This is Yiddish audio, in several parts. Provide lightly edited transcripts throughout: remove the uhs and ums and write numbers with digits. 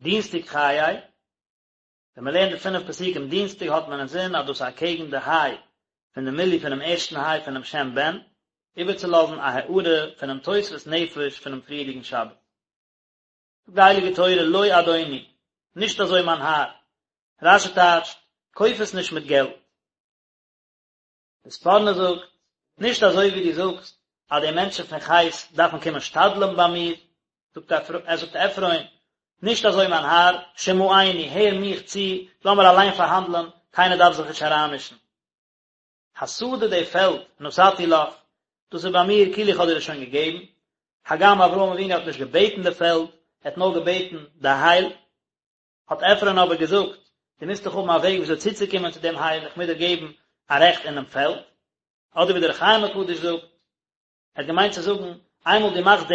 דינסטאג חיי, ווען מען לערנט די פינף פסוקים דינסטאג האט מען אינזין אז דאס איז אקעגן די היי פון די מילוי פונעם ערשטן היי פונעם שם בן, איבערצולאזן א הארה פונעם תוספות נפש פונעם פריערדיגן שבת. זאגט די הייליגע תורה לא אדוני, נישט אזוי מיין האר, רש"י טייטשט, קויף עס נישט מיט געלט. די ספורנו זאגט, נישט אזוי ווי דו זאגסט אז די מענטשן פון חת דארפן קומען שתדל'ן ביי מיר, זאגט ער זאגט עפרון, נישט אזוי מיין האר, שמעני, הער מיך צו, לאמיר אליין פארהאנדלען, קיינער דארף זיך נישט אריינמישן. השדה די פעלד, נתתי לך, דאס איז ביי מיר כאילו איך האב דיר עס שוין געגעבן, הגם אברהם אבינו האט נישט געבעטן די פעלד, ער האט נאר געבעטן די הייל, האט עפרון אבער געזאגט, דו מוזט דאך האבן א וועג וויאזוי צוצוקומען צו דעם הייל, איך מוז דיר געבן א רעכט אינעם פעלד. אדער ווי דער אור החיים הקדוש זאגט, ער האט געמיינט צו זאגן, איינמאל דו מאכסט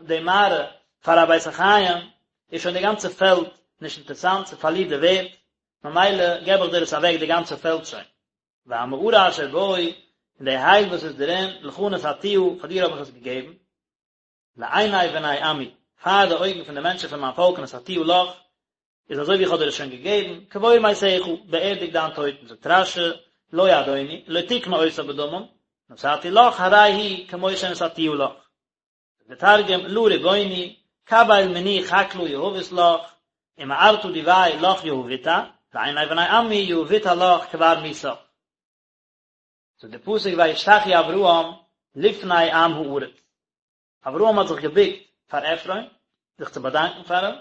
די מערה פאר א בית החיים, איז שוין די גאנצע פעלד נישט אינטערסאנט, ס'פארלירט די ווערד, ממילא געב איך דיר עס אוועק די גאנצע פעלד שוין. והמערה אשר בו, און די הייל וואס איז דערין, לך נתתיה, פאר דיר האב איך עס געגעבן. לעיני בני עמי, פאר די אויגן פון די מענטשן פון מיין פאלק נתתיה לך, איז אזוי ווי איך האב דיר עס שוין געגעבן, קבור מתך, באערדיג דיין טויטן, זאגט רש"י, לא אדוני, לא תקנה אותה בדמים, נתתי לך, הרי היא כמו שנתתיה לך. זאגט דער תרגום, לא רבוני, קביל מני חקלא יהבית לך, ומערתא דביה לך יהביתה, לעיני בני עמי יהביתה לך קבר מיתך. זאגט דער פסוק וישתחו אברהם לפני עם הארץ, אברהם האט זיך געבוקט פאר עפרון, זיך צו באדאנקען פאר אים,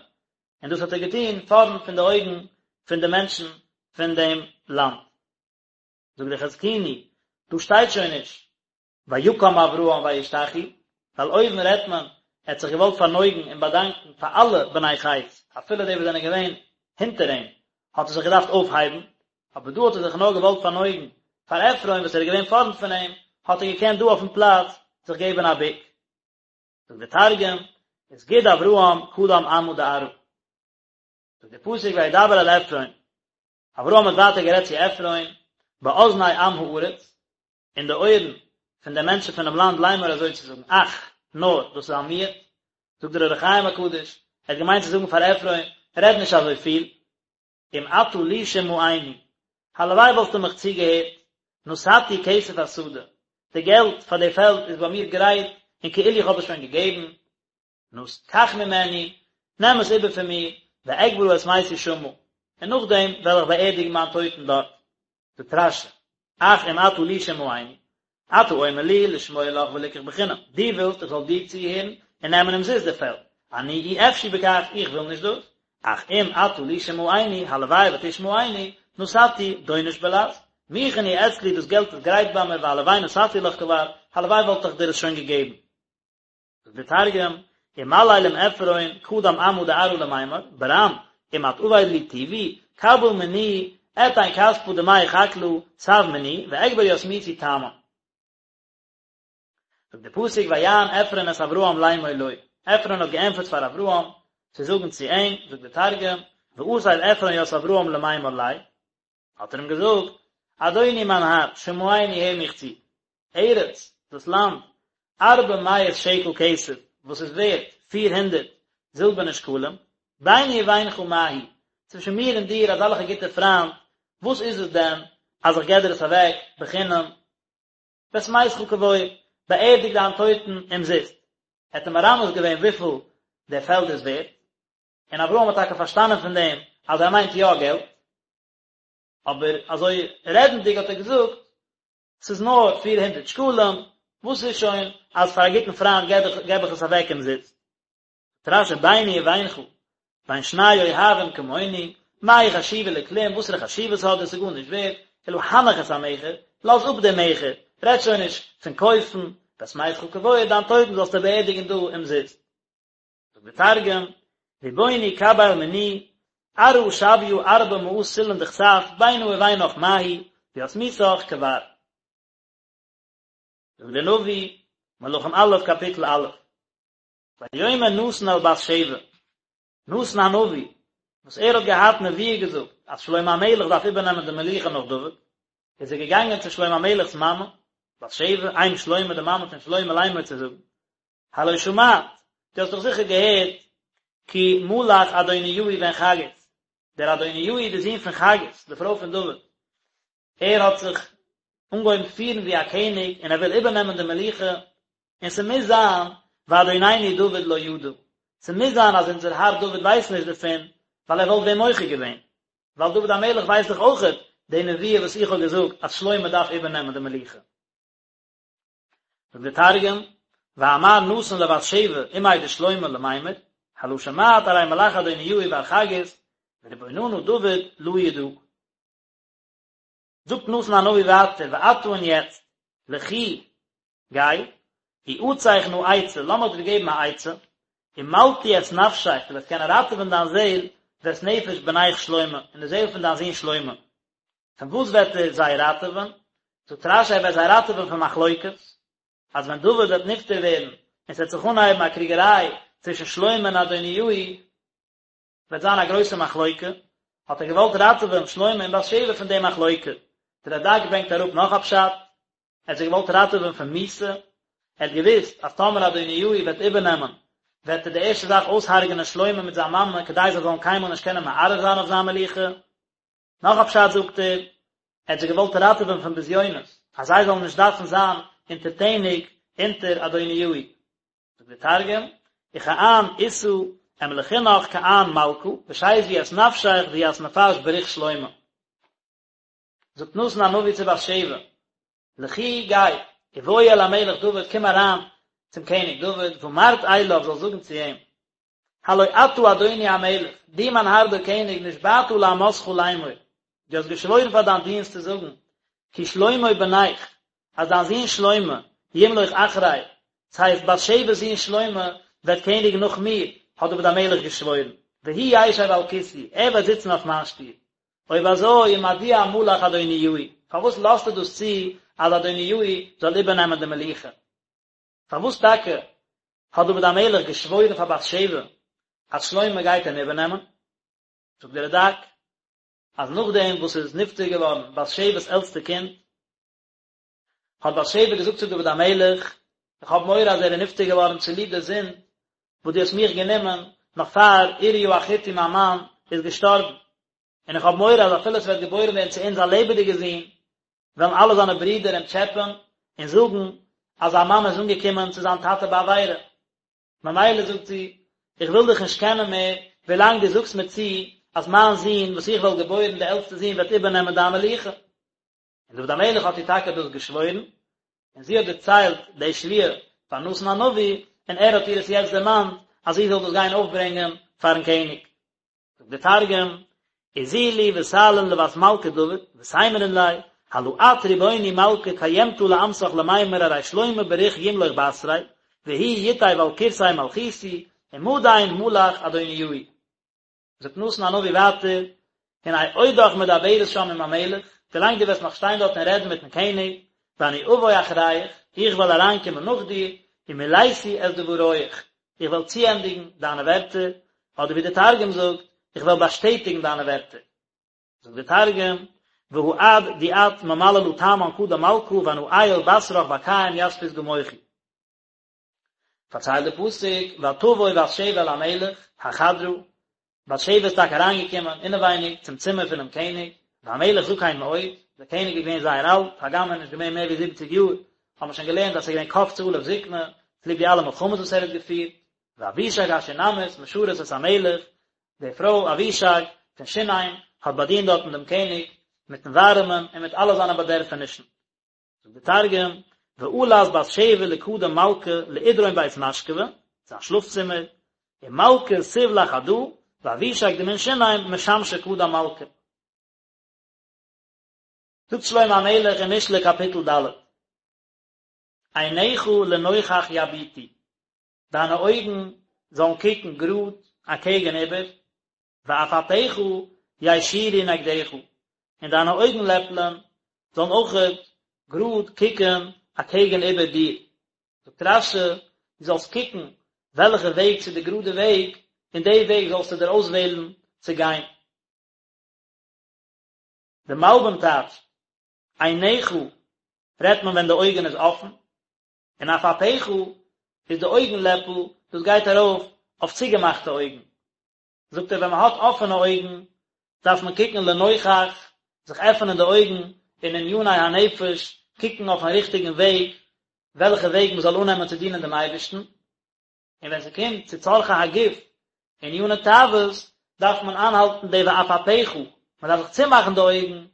און דאס האט ער געטון פארנט פון די אויגן פון די מענטשן פון דעם לאנד. זאגט דער חזקוני, דא שטייט שוין נישט ויקם אברהם וישתחו, ווייל אויבן רעדט מען, ער האט זיך געוואלט פארנויגן און באדאנקן פאר אלע בני חת, אפילו די וואס זענען געווען הינטער אים, האט ער זיך געדארפט אויפהייבן, אבער דא האט ער זיך נאר געוואלט פארנויגן פאר עפרון וואס ער איז געווען פארנט פון אים, האט ער געקענט דא אויפן פלאץ זיך געבן א בוק. זאגט דער תרגום, וסגיד אברהם קדם עמא דארעא. זאגט דער פסוק וידבר אל עפרון, אברהם האט ווייטער גערעדט צו עפרון, באזני עם הארץ, אין די אויערן פון די מענטשן פונעם לאנד לאמר אזוי צו זאגן, אך, נאר, דאס איז א מיעוט, זאגט דער אור החיים הקדוש, ער האט געמיינט צו זאגן פאר עפרון, רעד נישט אזוי פיל, אם אתה לי שמעני, הלוואי וואלסטו מיך צוגעהערט, נתתי כסף השדה, די געלט פאר די פעלד איז ביי מיר גרייט און כאילו איך האב עס שוין געגעבן, נא, קח ממני, נעם עס איבער פון מיר, ואקברה את מתי שמה, און נאכדעם וועל איך באערדיגן מיין טויטן דארט. זאגט רש"י, אך אם אתה לי שמעני, אתה אומר לי לשמוע לך ולקח בחינם, דו ווילסט איך זאל דיר צוהערן און נעמען אומזיסט די פעלד, אני אי אפשי בכך, איך וויל נישט דאס, אך אם אתה לי שמעני, הלוואי ותשמעני, נתתי, דונש בלע"ז, מוכן הוא אצלי, דאס געלט איז גרייט ביי מיר, והלוואי נתתי לך כבר, הלוואי וואלט איך דיר עס שוין געגעבן. זאגט דער תרגום, ומליל עם עפרון קדם עמא דארעא למימר, ברם, אם את עביד לי טיבי, קביל מני, אתין כספא דמי חקלא, תב מני, ואקבר ית מיתי תמן. זאגט דער פסוק ויען עפרון את אברהם לאמור לו, עפרון האט געענטפערט פאר אברהם, צו זאגן צו אים, זאגט דער תרגום, ואתיב עפרון ית אברהם למימר ליה, האט ער אים געזאגט, אדוני מיין האר, שמעני הער מיך צו, ארץ, דאס לאנד, ארבע מאות שקל כסף, וואס איז ווערט פיר הונדערט זילבערנע שקלים, ביני ובינך מה היא, צווישן מיר און דיר אזעלכע גוטע פריינט, וואס איז עס דען אז איך געב דיר עס אוועק בחינם? ואת מתך קבור, באערדיג דיין טויטן אומזיסט. ער האט אים מרמז געווען וויפיל דער פעלד איז ווערט, און אברהם האט טאקע פארשטאנען פון דעם אז ער מיינט יא געלט, אבער אזוי רעדנדיג האט ער געזאגט, ס'איז נאר פיר הונדערט שקלים, וואס איז שוין אז פאר א גוטן פריינט געב איך עס אוועק אומזיסט. זאגט רש"י ביני ובינך, בין שני אוהבים כמונו, מה היא חשובה לכלום, וואסערע חשיבות האט דאס, ס'איז גארנישט ווערט, אלא הנח את המכר, לאז אפ דעם מכר, רעד שוין נישט פון קויפן, ואת מתך קבור, דיין טויטן זאלסטו באערדיגן דא אומזיסט. זאגט דער תרגום, רבוני קביל מני, ארעא שוויא ארבע מאה סלעין דכסף, בינא ובינך מה היא, וית מיתך קבר. זאגט דער נביא, מלכים א', קאפיטל א', ויאמר נתן אל בת שבע, נתן הנביא, וואס ער האט געהאט נבואה געזאגט אז שלמה המלך דארף איבערנעמען די מלוכה נאך דוד, איז ער געגאנגען צו שלמה המלך'ס מאמע, בת שבע, אם שלמה, די מאמע פון שלמה לאמר צו זאגן, הלא שמעת, דו האסט דאך זיכער געהערט. כי מלך אדוניהו בן חגית, דער אדוניהו דער זון פון חגית, די פרוי פון דוד, ער האט זיך אנגעהויבן פירן ווי א קעניג און ער וויל איבערנעמען די מלוכה, און ס'מוז זיין ואדוננו דוד לא ידע, ס'מוז זיין אז אונזער האר דוד ווייסט נישט דערפון, ווייל ער וואלט ווען מוחה געווען, ווייל דוד המלך ווייסט דאך אויכעט די נבואה וואס איך האב געזאגט אז שלמה דארף איבערנעמען די מלוכה. זאגט דער תרגום, ואמר נתן לבת שבע אמיה דשלמה למימר, הלא שמעת ארי מלך אדוניהו בר חגית, ורבוננא דוד לא ידע. זאגט נתן הנביא ווייטער, ועתה און יעצט, לכי, גיי, איעצך נא עצה, לאמיך דיר געבן א עצה, ומלטי את נפשך, דו וועסט קענען ראטעווען דיין זעל, ואת נפש בנך שלמה, און די זעל פון דיין זון שלמה. פון וואס וועט ער זיי ראטעווען? זאגט רש"י ער וועט זיי ראטעווען פון מחלוקת, אז ווען דוד וועט נפטר ווערן און ס'וועט זיך אנהייבן א קריגעריי צווישן שלמה און אדוניהו, וועט זיין א גרויסע מחלוקה, האט ער געוואלט ראטעווען שלמה און בת שבע פון די מחלוקה. דער רד"ק ברענגט אראפ נאך א פשט, ער האט זיי געוואלט ראטעווען פון מיתה, ער האט געוואוסט אז טאמער אדוניהו וועט איבערנעמען, וועט ער די ערשטע זאך אויסהרג'נען שלמה מיט זיין מאמע כדי זיי זאלן קיינמאל נישט קענען מערער זיין אויף זיין מלוכה. נאך א פשט זאגט ער, ער האט זיי געוואלט ראטעווען פון בזיונות, אז זיי זאלן נישט דארפן זיין אונטערטעניג אונטער אדוניהו. זאגט דער תרגום, וכען איתא אמלכינך כען מלכא, ושיזבי ית נפשך וית נפש בריך שלמה. זאגט נתן הנביא צו בת שבע, לכי גיי, ובואי אל המלך דוד, קום אריין צום קעניג דוד, ואמרת אליו, זאלסט זאגן צו אים, הלא אתה אדוני המלך, דו מיין האר דער קעניג, נשבעת לאמתך לאמור, דו האסט געשוואוירן פאר דיין דינסט צו זאגן, כי שלמה בנך, אז דיין זון שלמה, ימלוך אחרי, ס'הייסט בת שבע'ס זון שלמה, וועט קעניגן נאך מיר, האט דוד המלך געשוואוירן, והוא ישב על כסאי, ער וועט זיצן אויף מיין שטול. אויב אזוי, ומדוע מלך אדוניהו, פארוואס לאזטו דאס צו אז אדוניהו זאל איבערנעמען די מלוכה? פארוואס טאקע האט דוד המלך געשוואוירן פאר בת שבע אז שלמה גייט אים איבערנעמען? זאגט דער רד"ק אז נאכדעם וואס איז נפטר געווארן בת שבע'ס עלטסטע קינד, האט בת שבע געזאגט צו דוד המלך, איך האב מורא אז ער איז נפטר געווארן צוליב די זינד וואס דו האסט מיך גענומען נאך פאר אוריה החתי מיין מאן איז געשטארבן, און איך האב מורא אז אפילו עס וועט געבוירן ווערן צו אונז א לעבעדיגער זון, וועלן אלע זיינע ברידער אים טשעפען און זאגן אז זיין מאמע איז אנגעקומען צו זיין טאטע בעבירה. ממילא זאגט זי, איך וויל דיך נישט קענען מער, ווילאנג דו זאגסט מיר צו אז מיין זון וואס איך וועל געבוירן, דער עלטסטער זון, וועט איבערנעמען דיין מלוכה. און דוד המלך האט איר טאקע דאס געשוואוירן, און זי האט דערציילט די שבועה פאר נתן הנביא, און ער האט איר עס יעצט דערמאנט אז זי זאל דאס גיין אויפברענגען פארן קעניג. זאגט דער תרגום, איזילי ותעלין לות מלכא דוד, ותימרין ליה, הלא את ריבוני מלכא קיימתא לאמתך למימר ארי שלמה בריך ימלוך בתרי, והוא יתיב על כורסי מלכותי, ומדין מלך אדוניהו. זאגט נתן הנביא ווייטער, הנה עודך מדברת שם עם המלך, ווילאנג דו וועסט נאך שטיין דארט און רעדן מיטן קעניג, ואני אבוא אחריך, איך וועל אריינקומען נאך דיר, ומלאתי את דבריך, איך וועל צוענדיגן דיינע ווערטער, אדער ווי דער תרגום זאגט, איך וועל באשטעטיגן דיינע ווערטער. זאגט דער תרגום, והא עד די את ממללא תמן קדם מלכא ואנא עייל בתרך ואקיים ית פתגמיכי. פארציילט די פסוק, ותבוא בת שבע אל המלך, החדרה, בת שבע איז טאקע אריינגעקומען אינעווייניג צום צימער פונעם קעניג, והמלך זקן מאוד, דער קעניג איז געווען זייער אלט, הגם ער איז נישט געווען מער ווי זיבעציג יאר, האט מען שוין געלערנט אז עס איז געווען קפצה עליו זקנה, צוליב די אלע מלחמות וואס ער האט געפירט, ואבישג השונמית משרת את המלך, די פרוי אבישג פון שונם האט באדינט דארטן דעם קעניג מיטן ווארעמען און מיט אלע זיינע באדערפענישן. זאגט דער תרגום, ועלת בת שבע לקדם מלכא לאידרון בית משכבא, זיין שלאף צימער, ומלכא תיב לחדא, ואבישג דמן שונם משמשא קדם מלכא. זאגט שלמה המלך אין משלי קאפיטל ד', עיניך לנוכח יביטו, דיינע אויגן זאלן קוקן גראד אקעגן איבער, ועפעפיך יישירו נגדך, און דיינע אויגן לעפלען זאלן אויכעט גראד קוקן אקעגן איבער דיר. זאגט רש"י, דו זאלסט קוקן וועלכע וועג ס'איז די גראדע וועג, און די וועג זאלסטו דיר אויסוועלן צו גיין. די מלבים טייטשט, עיניך רעדט מען ווען די אויגן איז אפן, און עפעפיך איז די אויגן לעפל, דאס גייט ארויף אויף צוגעמאכטע אויגן. זאגט ער ווען מען האט אפענע אויגן דארף מען קוקן לנוכח, זיך עפענען די אויגן אין עניני הנפש, קוקן אויפן ריכטיגן וועג, וועלכע וועג מען זאל אננעמען צו דינען דעם אייבערשטן, און ווען ס'קומט צו צרכי הגוף, עניני תאוות, דארף מען איינהאלטן די ועפעפיך, מען דארף זיך צומאכן די אויגן,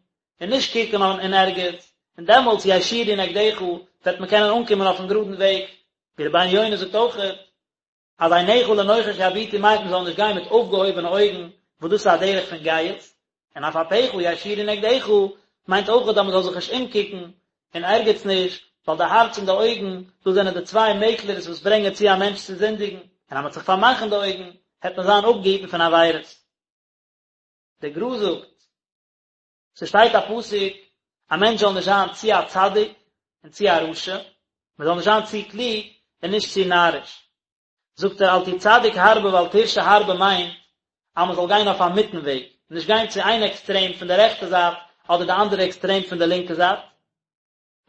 און נישט קוקן אין ערגעץ, און דעמאלטס יישירו נגדך, וועט מען קענען אנקומען אויפן גראדן וועג, ווי רבינו יונה זאגט אויכעט, אז עיניך לנוכח יביטו מיינט מען זאל נישט גיין מיט אויפגעהויבענע אויגן, וואס דאס איז א דרך פון גאות, און עפעפיך יישירו נגדך מיינט אויכעט אז מען זאל זיך נישט אומקוקן אין ערגעץ נישט, ווייל די הארץ און די אויגן, דאס זענען די צוויי מעקלערס וואס ברענגען צו א מענטש צו זינדיגן, און אז מען וועט זיך פארמאכן די אויגן, העט מען זיין אפגעהיטן פון עבירות. דער גר"א זאגט, ס'שטייט א פסוק, א מענטש זאל נישט זיין צו א צדיק און צו א רשע, מען זאל נישט זיין צו קלוג און נישט צו נאריש. זאגט ער אל תהי צדיק הרבה ואל תרשע הרבה מיינט אז מען זאל גיין אויף א מיטן וועג, נישט גיין צו איין עקסטרעם פון די רעכטע זייט אדער די אנדערע עקסטרעם פון די לינקע זייט.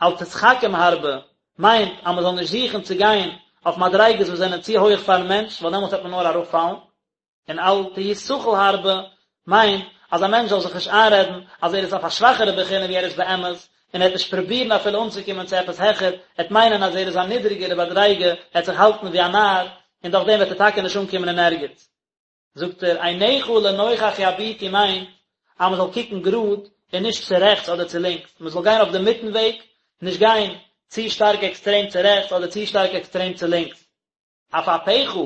אל תתחכם הרבה מיינט אז מען זאל נישט זוכן צו גיין אויף מדריגות וואס זענען צו הויעך פארן מענטש ווייל דעמאלטס וועט מען נאר אראפפאלן. און אל תהי סכל הרבה מיינט אז א מענטש זאל זיך נישט איינרעדן אז ער איז אויף א שוואכערע בחינה ווי ער איז באמת, און ער וועט נישט פרובירן אפילו אנצוקומען צו עפעס העכער, ער וועט מיינען אז ער איז א נידריגערע מדריגה, ער וועט זיך האלטן ווי א נאר, און דורך דעם וועט ער טאקע נישט אנקומען אין ערגעץ. זאגט ער, עיניך לנוכח יביטו מיינט אז מען זאל קוקן גראד און נישט צו רעכטס אדער צו לינקס, מען זאל גיין אויף די מיטן וועג, נישט גיין צו שטארק עקסטרעם צו רעכטס אדער צו שטארק עקסטרעם צו לינקס. עפעפיך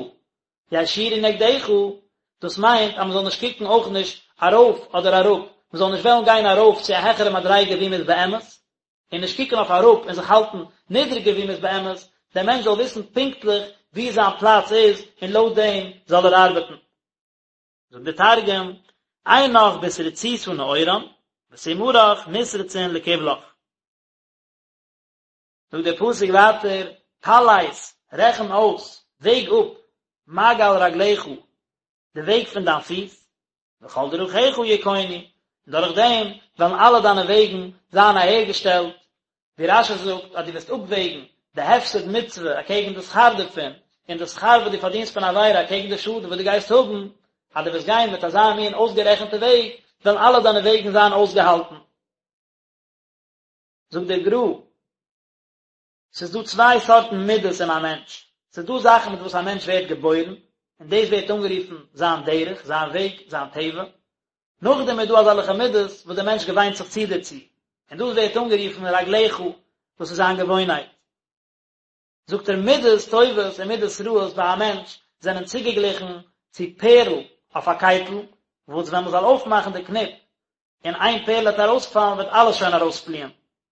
יישירו נגדך, דאס מיינט אז מען זאל נישט קוקן אויך נישט ארויף אדער אראפ, מען זאל נישט וועלן גיין ארויף צו א העכערע מדריגה ווי מען איז באמת, און נישט קוקן אויף אראפ און זיך האלטן נידריגער ווי מען איז באמת, דער מענטש זאל וויסן פונקטליך ווי זיין פלאץ איז און לויט דעם זאל ער ארבעטן. זאגט דער תרגום, עינך בתריצותא נאורן, ותימרך נתרצון לקבלך. זאגט דער פסוק ווייטער, פלס, רעכן אויס, וועג אפ, מעגל רגליך, די וועג פון דיין פיס, וכל דרכיך יכונו, און דורך דעם וועלן אלע דיינע וועגן זיין אהערגעשטעלט, ווי רש"י זאגט אז דו וועסט אפוועגן די הפסד מצוה אקעגן די שכר דערפון, און די שכר וואס דו פארדינסט פון עבירה אקעגן די שאדן וואס דו גייסט האבן, אז דו וועסט גיין מיט אזא מין אויסגערעכנטע וועג, וועלן אלע דיינע וועגן זיין אויסגעהאלטן. זאגט דער גר"א, ס'איז דא צוויי סארטן מידות אין א מענטש, ס'איז דא זאכן מיט וואס א מענטש ווערט געבוירן, און דאס ווערט אנגערופן זיין דרך, זיין וועג, זיין טבע, נאכדעם איז דא אזעלכע מידות וואס דער מענטש געוויינט זיך צו דערצו, און דאס ווערט אנגערופן רגליך, דאס איז זיין געוואוינהייט. זאגט ער מידות טובות און מידות רעות ביי א מענטש זענען צוגעגליכן צו פערל אויף א קייטל, וואס ווען מען זאל אויפמאכן די קניפ און איין פערל וועט ארויספאלן וועט אלעס שוין ארויספליען.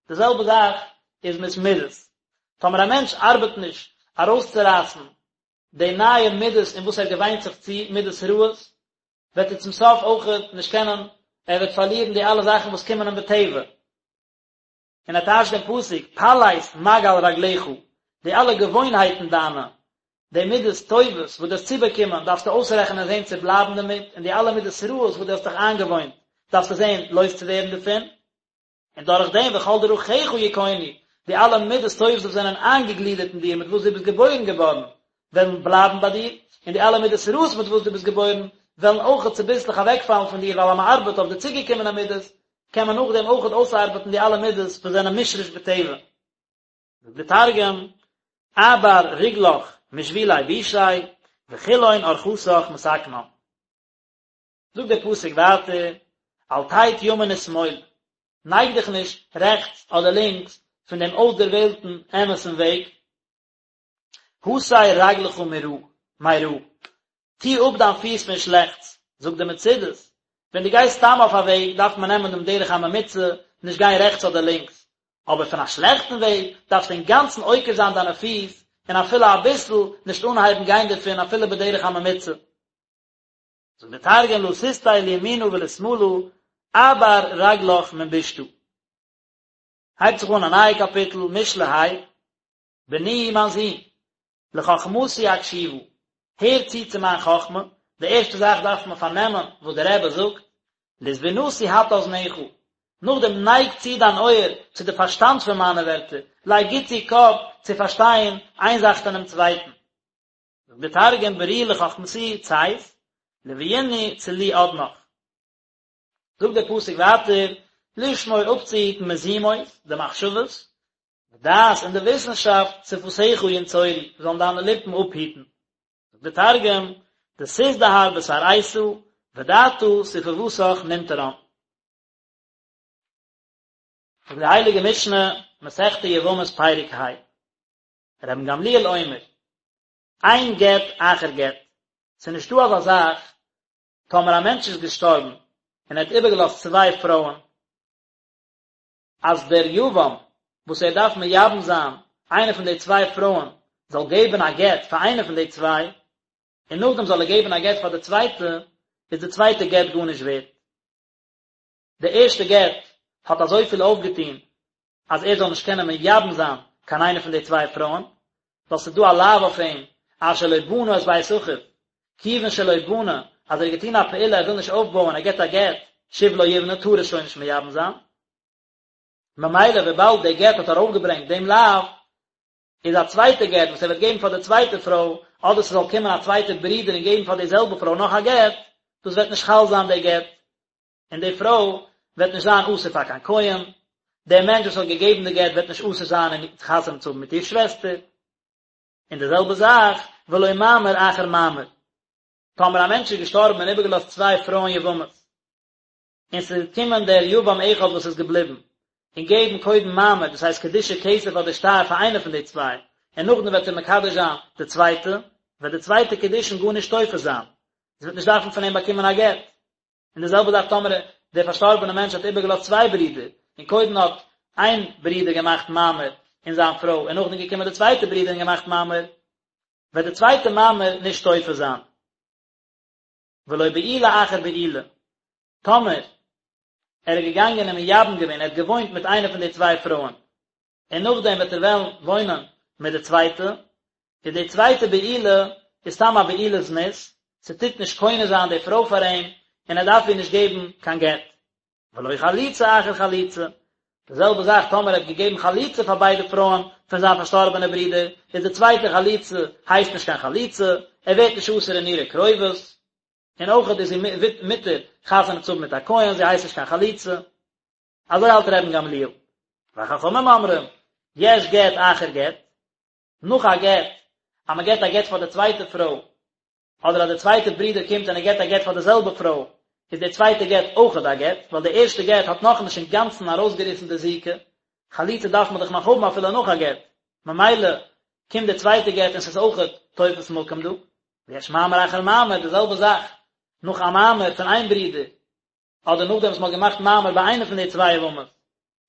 די זעלבע זאך איז מיט מידות. טאמער א מענטש ארבעט נישט ארויסצורייסן די נייע מידות אין וואס ער געוויינט זיך צו, מידות רעות, וועט ער צום סוף אויכעט נישט קענען, ער וועט פארלירן די אלע זאכן וואס קומען אים בטבע. און ער טייטשט דעם פסוק, פלס מעגל רגליך, די אלע געוואוינהייטן דיינע, די מידות טובות וואס דו האסט צובאקומען, דארפסטו אויסרעכענען זען צו בלייבן דערמיט, און די אלע מידות רעות וואס דו האסט דיך איינגעוואוינט, דארפסטו זען לויז צו ווערן דערפון, און דורך דעם וכל דרכיך יכונו, די אלע מידות טובות וואס זענען איינגעגלידערט אין דיר מיט וואס דו ביסט געבוירן געווארן, וועלן בלייבן ביי דיר, און די אלע מידות רעות מיט וואס דו ביסט געבוירן, וועלן אויכעט צוביסלעך אוועקפאלן פון דיר, ווייל אז מען ארבעט אויף די צוגעקומענע מידות, קען מען נאכדעם אויכעט אויסארבעטן די אלע מידות וואס זענען מושרש בטבע. זאגט די תרגום, אעבר רגלך משבילי בישי, וכולהון ארחתך מתקנן. זאגט דער פסוק ווייטער, אל תט ימין ושמאל, נייג דיך נישט רעכטס אדער לינקס פון דעם אויסדערוועלטן אמת'ן וועג, הסר רגלך מרע, מרע, טו אפ דיין פיס פון שלעכטס, זאגט די מצודות, ווען דו גייסט סתם אויף א וועג דארף מען נעמען דעם דרך הממוצע, נישט גיין רעכטס אדער לינקס, אבער פון א שלעכטן וועג דארפסטו אינגאנצן עוקר זיין דיינע פיס, און אפילו אביסל נישט אנהייבן גיין דערפון אפילו בדרך הממוצע. זאגט די תרגום לא תסטי לימינא ולשמאלא, אעבר רגלך מן בישתא. הייבט זיך אן א נייע קאפיטל, משלי ה, בני מיין זון, לחכמתי הקשיבה, הער צו צו מיין חכמה, די ערשטע זאך דארף מען פארנעמען וואס דער רבי זאגט, לתבונתי הטה אזנך, נאכדעם נייג צו דיין אויער צו די פארשטאנד פון מיינע ווערטער, לייג גוט צו קאפ צו פארשטיין איין זאך פונעם צווייטן. זאגט דער תרגום ברי לחכמתי ציית. לויני צלי אדנך. זאגט דער פסוק ווייטער, לשמור אפצוהיטן מזימות, די מחשבות, ודעת און די וויסנשאפט, שפתיך ינצורו, זאלן דיינע ליפן אפהיטן. זאגט דער תרגום, דתזדהר בתרעיתא, ודעתא ספוותך ננטרן. זאגט די הייליגע משנה, מסכת יבמות פרק ה, רבן גמליאל אומר, אין גט אחר גט, ס'איז נישטא אזא זאך טאמער א מענטש איז געשטארבן און ער האט איבערגעלאזט צוויי פרויען, אז דער יבם וואס ער דארף מייבם זיין איינע פון די צוויי פרויען זאל געבן א גט פאר איינע פון די צוויי, און נאכדעם זאל ער געבן א גט פאר די צווייטע, איז די צווייטע גט גארנישט ווערט. די ערשטע גט האט אזויפיל אויפגעטון אז ער זאל נישט קענען מייבם זיין קיין איינע פון די צוויי פרויען, ווייל ס'איז דא א לאו אויף אים אשר לא בנה את בית אחיו, כיוון שלא בנה, אז ער האט געטון א פעולה ער וויל נישט אויפבויען ער געבט א גט, שוב לא יבנה טאר ער שוין נישט מייבם זיין. ממילא וויבאלד די גט האט ארויפגעברענגט דעם לאו, איז א צווייטע גט וואס ער וועט געבן פאר די צווייטע פרוי, אדער ס'זאל קומען א צווייטע ברודער און געבן פאר די זעלבע פרוי נאך א גט, דאס וועט נישט חל זיין די גט, און די פרוי וועט נישט זיין אסור פאר קיין כהן, דער מענטש וואס האט געגעבן די גט וועט נישט אסור זיין אין חתונה צו האבן מיט איר שוועסטער. און די זעלבע זאך, ולא מאמר אחר מאמר. טאמער א מענטש איז געשטארבן און איבערגעלאזט צוויי פרויען יבמות, און ס'איז געקומען דער יבם אחד וואס איז געבליבן, און געבן קודם מאמר, דאס הייסט קידושי כסף אדער שטר פאר איינע פון די צוויי, און נאכדעם וועט ער מקדש זיין די צווייטע, וועט די צווייטע קידושין גארנישט תופס זיין, זי וועט נישט דארפן פון אים באקומען א גט. און די זעלבע זאך טאמער דער פארשטארבענער מענטש האט איבערגעלאזט צוויי ברידער, און קודם האט איין ברודער געמאכט מאמר אין זיין פרוי, און נאכדעם געקומען דער צווייטער ברודער און געמאכט מאמר, וועט די צווייטע מאמר נישט תופס זיין. ולא בעילה אחר בעילה, טאמער ער איז געגאנגען און מייבם געווען, ער האט געוואוינט מיט איינע פון די צוויי פרויען, און נאכדעם וועט ער וועלן וואוינען מיט די צווייטע, איז די צווייטע בעילה איז סתם א בעילת זנות, ס'טוט נישט קונה זיין די פרוי פאר אים, און ער דארף איר נישט געבן קיין גט. ולא חליצה אחר חליצה, די זעלבע זאך טאמער ער האט געגעבן חליצה פאר ביידע פרויען פון זיין פארשטארבענע ברודער, איז די צווייטע חליצה הייסט נישט קיין חליצה, ער ווערט נישט אסור אין אירע קרובות, און אויכעט איז זי מותר חתונה צו האבן מיט א כהן, זי הייסט נישט קיין חלוצה. אזוי האלט רבן גמליאל. וחכמים אומרים, יש גט אחר גט, נאך א גט, אז מען געבט א גט פאר די צווייטע פרוי, אדער אז די צווייטע ברודער קומט און ער געבט א גט פאר די זעלבע פרוי, איז די צווייטע גט אויכעט א גט, ווייל די ערשטע גט האט נאכנישט אינגאנצן ארויסגעריסן די זיקה, חליצה דארף מען דאך נאך האבן אפילו נאך א גט, ממילא קומט די צווייטע גט און ס'איז אויכעט תופס מקום דא. ויש מאמר אחר מאמר, די זעלבע זאך, נאך א מאמר פון איין ברודער, אדער נאכדעם וואס מ'האט געמאכט מאמר ביי איינע פון די צוויי יבמות,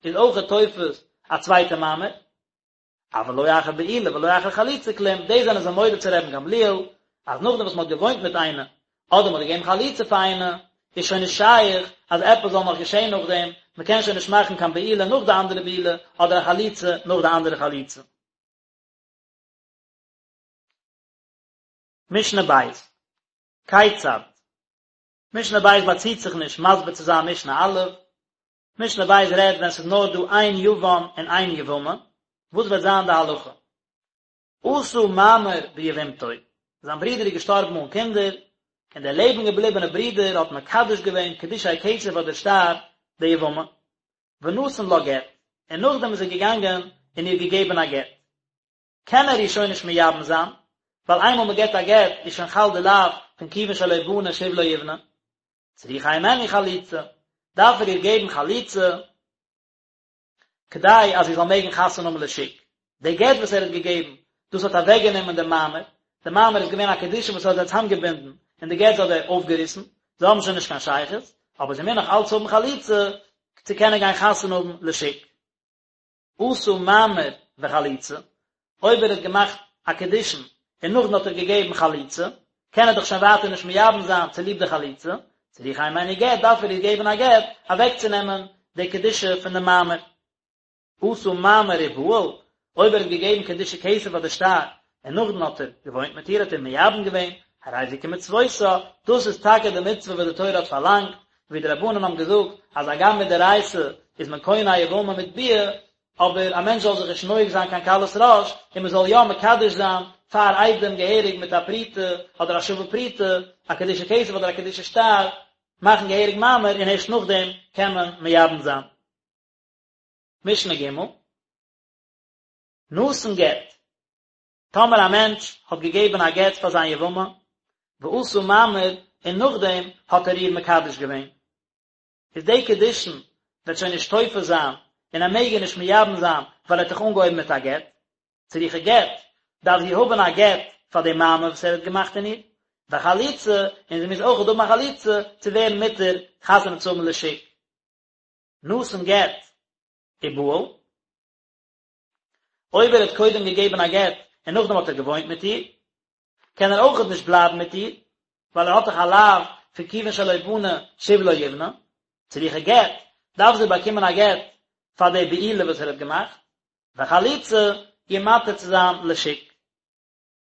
איז אויכעט תופס א צווייטע מאמר. אבל לא אחר בעילה ולא אחר חליצה כלום, דאס זענען זיי מודה צו רבן גמליאל, אז נאכדעם וואס מ'האט געוואוינט מיט איינע, אדער מ'האט געגעבן חליצה פאר איינע, איז שוין נישט שייך אז עפעס זאל נאך געשען נאכדעם, מ'קען שוין נישט מאכן קיין בעילה נאך די אנדערע בעילה, אדער א חליצה נאך די אנדערע חליצה. משנה בית, כיצד? משנה בית באציט זיך נישט מסביר צו זיין משנה א', משנה בית רעדט ווען ס'איז נאר דא איין יבם און איין יבמה, וואס וועט זיין די הלכה? עשה מאמר ביבמתו, זיין ברודער איז געשטארבן אן קינדער, און דער לעבן געבליבענע ברודער האט מקדש געווען קידושי כסף אדער שטר די יבמה, ונתן לה גט, און נאכדעם איז ער געגאנגען און איר געגעבן א גט. קען ער איר שוין נישט מייבם זיין, ווייל איינמאל מען געבט א גט איז שוין חל די לאו פון כיוון שלא בנה שוב לא יבנה. צריכה הימנו חליצה, דארף ער איר געבן חליצה כדי אז זי זאל מעגן חתונה האבן לשוק. די גט וואס ער האט געגעבן, דאס האט אוועקגענומען דעם מאמר, די מאמר איז געווען א קידושין וואס האט זיי צוזאמגעבינדן, און די גט האט ער אויפגעריסן, זיי האבן שוין נישט קיין שייכות, אבער זי מוז נאך אלץ האבן חליצה צו קענען גיין חתונה האבן לשוק. עשה מאמר וחליצה, אויב ער האט געמאכט א קידושין און נאכדעם האט ער געגעבן חליצה, קען ער דאך שוין ווייטער נישט מייבם זיין צוליב די חליצה, צריכה הימנו גט, דארף ער איר געבן א גט אוועקצונעמען די קדושה פון די מאמר. עשה מאמר ובעל, אויב ער האט געגעבן קידושי כסף אדער שטר, און נאכדעם האט ער געוואוינט מיט איר האט ער מייבם געווען, הרי זו כמצוותה, דאס איז טאקע די מצוה וואס די תורה האט פארלאנגט, ווי די רבנן האבן געזאגט אז הגם מדאורייתא איז מען קונה א יבמה מיט ביאה, אבער א מענטש זאל זיך נישט נוהג זיין קיין קלות ראש, און מען זאל יא מקדש זיין פאר עדים געהעריג מיט א פרוטה אדער א שווה פרוטה, א קידושי כסף אדער א קידושי שטר, מאכן געהעריג מאמר און ערשט נאכדעם קען מען מייבם זיין. משנה ג' נתן גט, טאמער א מענטש האט געגעבן א גט פאר זיין יבמה, ועשה מאמר, און נאכדעם האט ער איר מקדש געווען, איז די קידושין וועט שוין נישט תופס זיין, און ער מעג איר נישט מייבם זיין, ווייל ער האט דאך אנגעהויבן מיט א גט. צריכה גט, דארף זי האבן א גט פאר די מאמר וואס ער האט געמאכט אין איר, וחליצה, און זי מוז אויכעט האבן א חליצה צו ווערן מותר חתונה צו האבן לשוק. נתן גט ובעל. אויב ער האט קודם געגעבן א גט און נאכדעם האט ער געוואוינט מיט איר, קען ער אויכעט נישט בלייבן מיט איר, ווייל ער האט דאך א לאו פון כיוון שלא בנה שוב לא יבנה, צריכה גט, דארף זי באקומען א גט פאר די בעילה וואס ער האט געמאכט, וחליצה, איר מתיר צו זיין לשוק.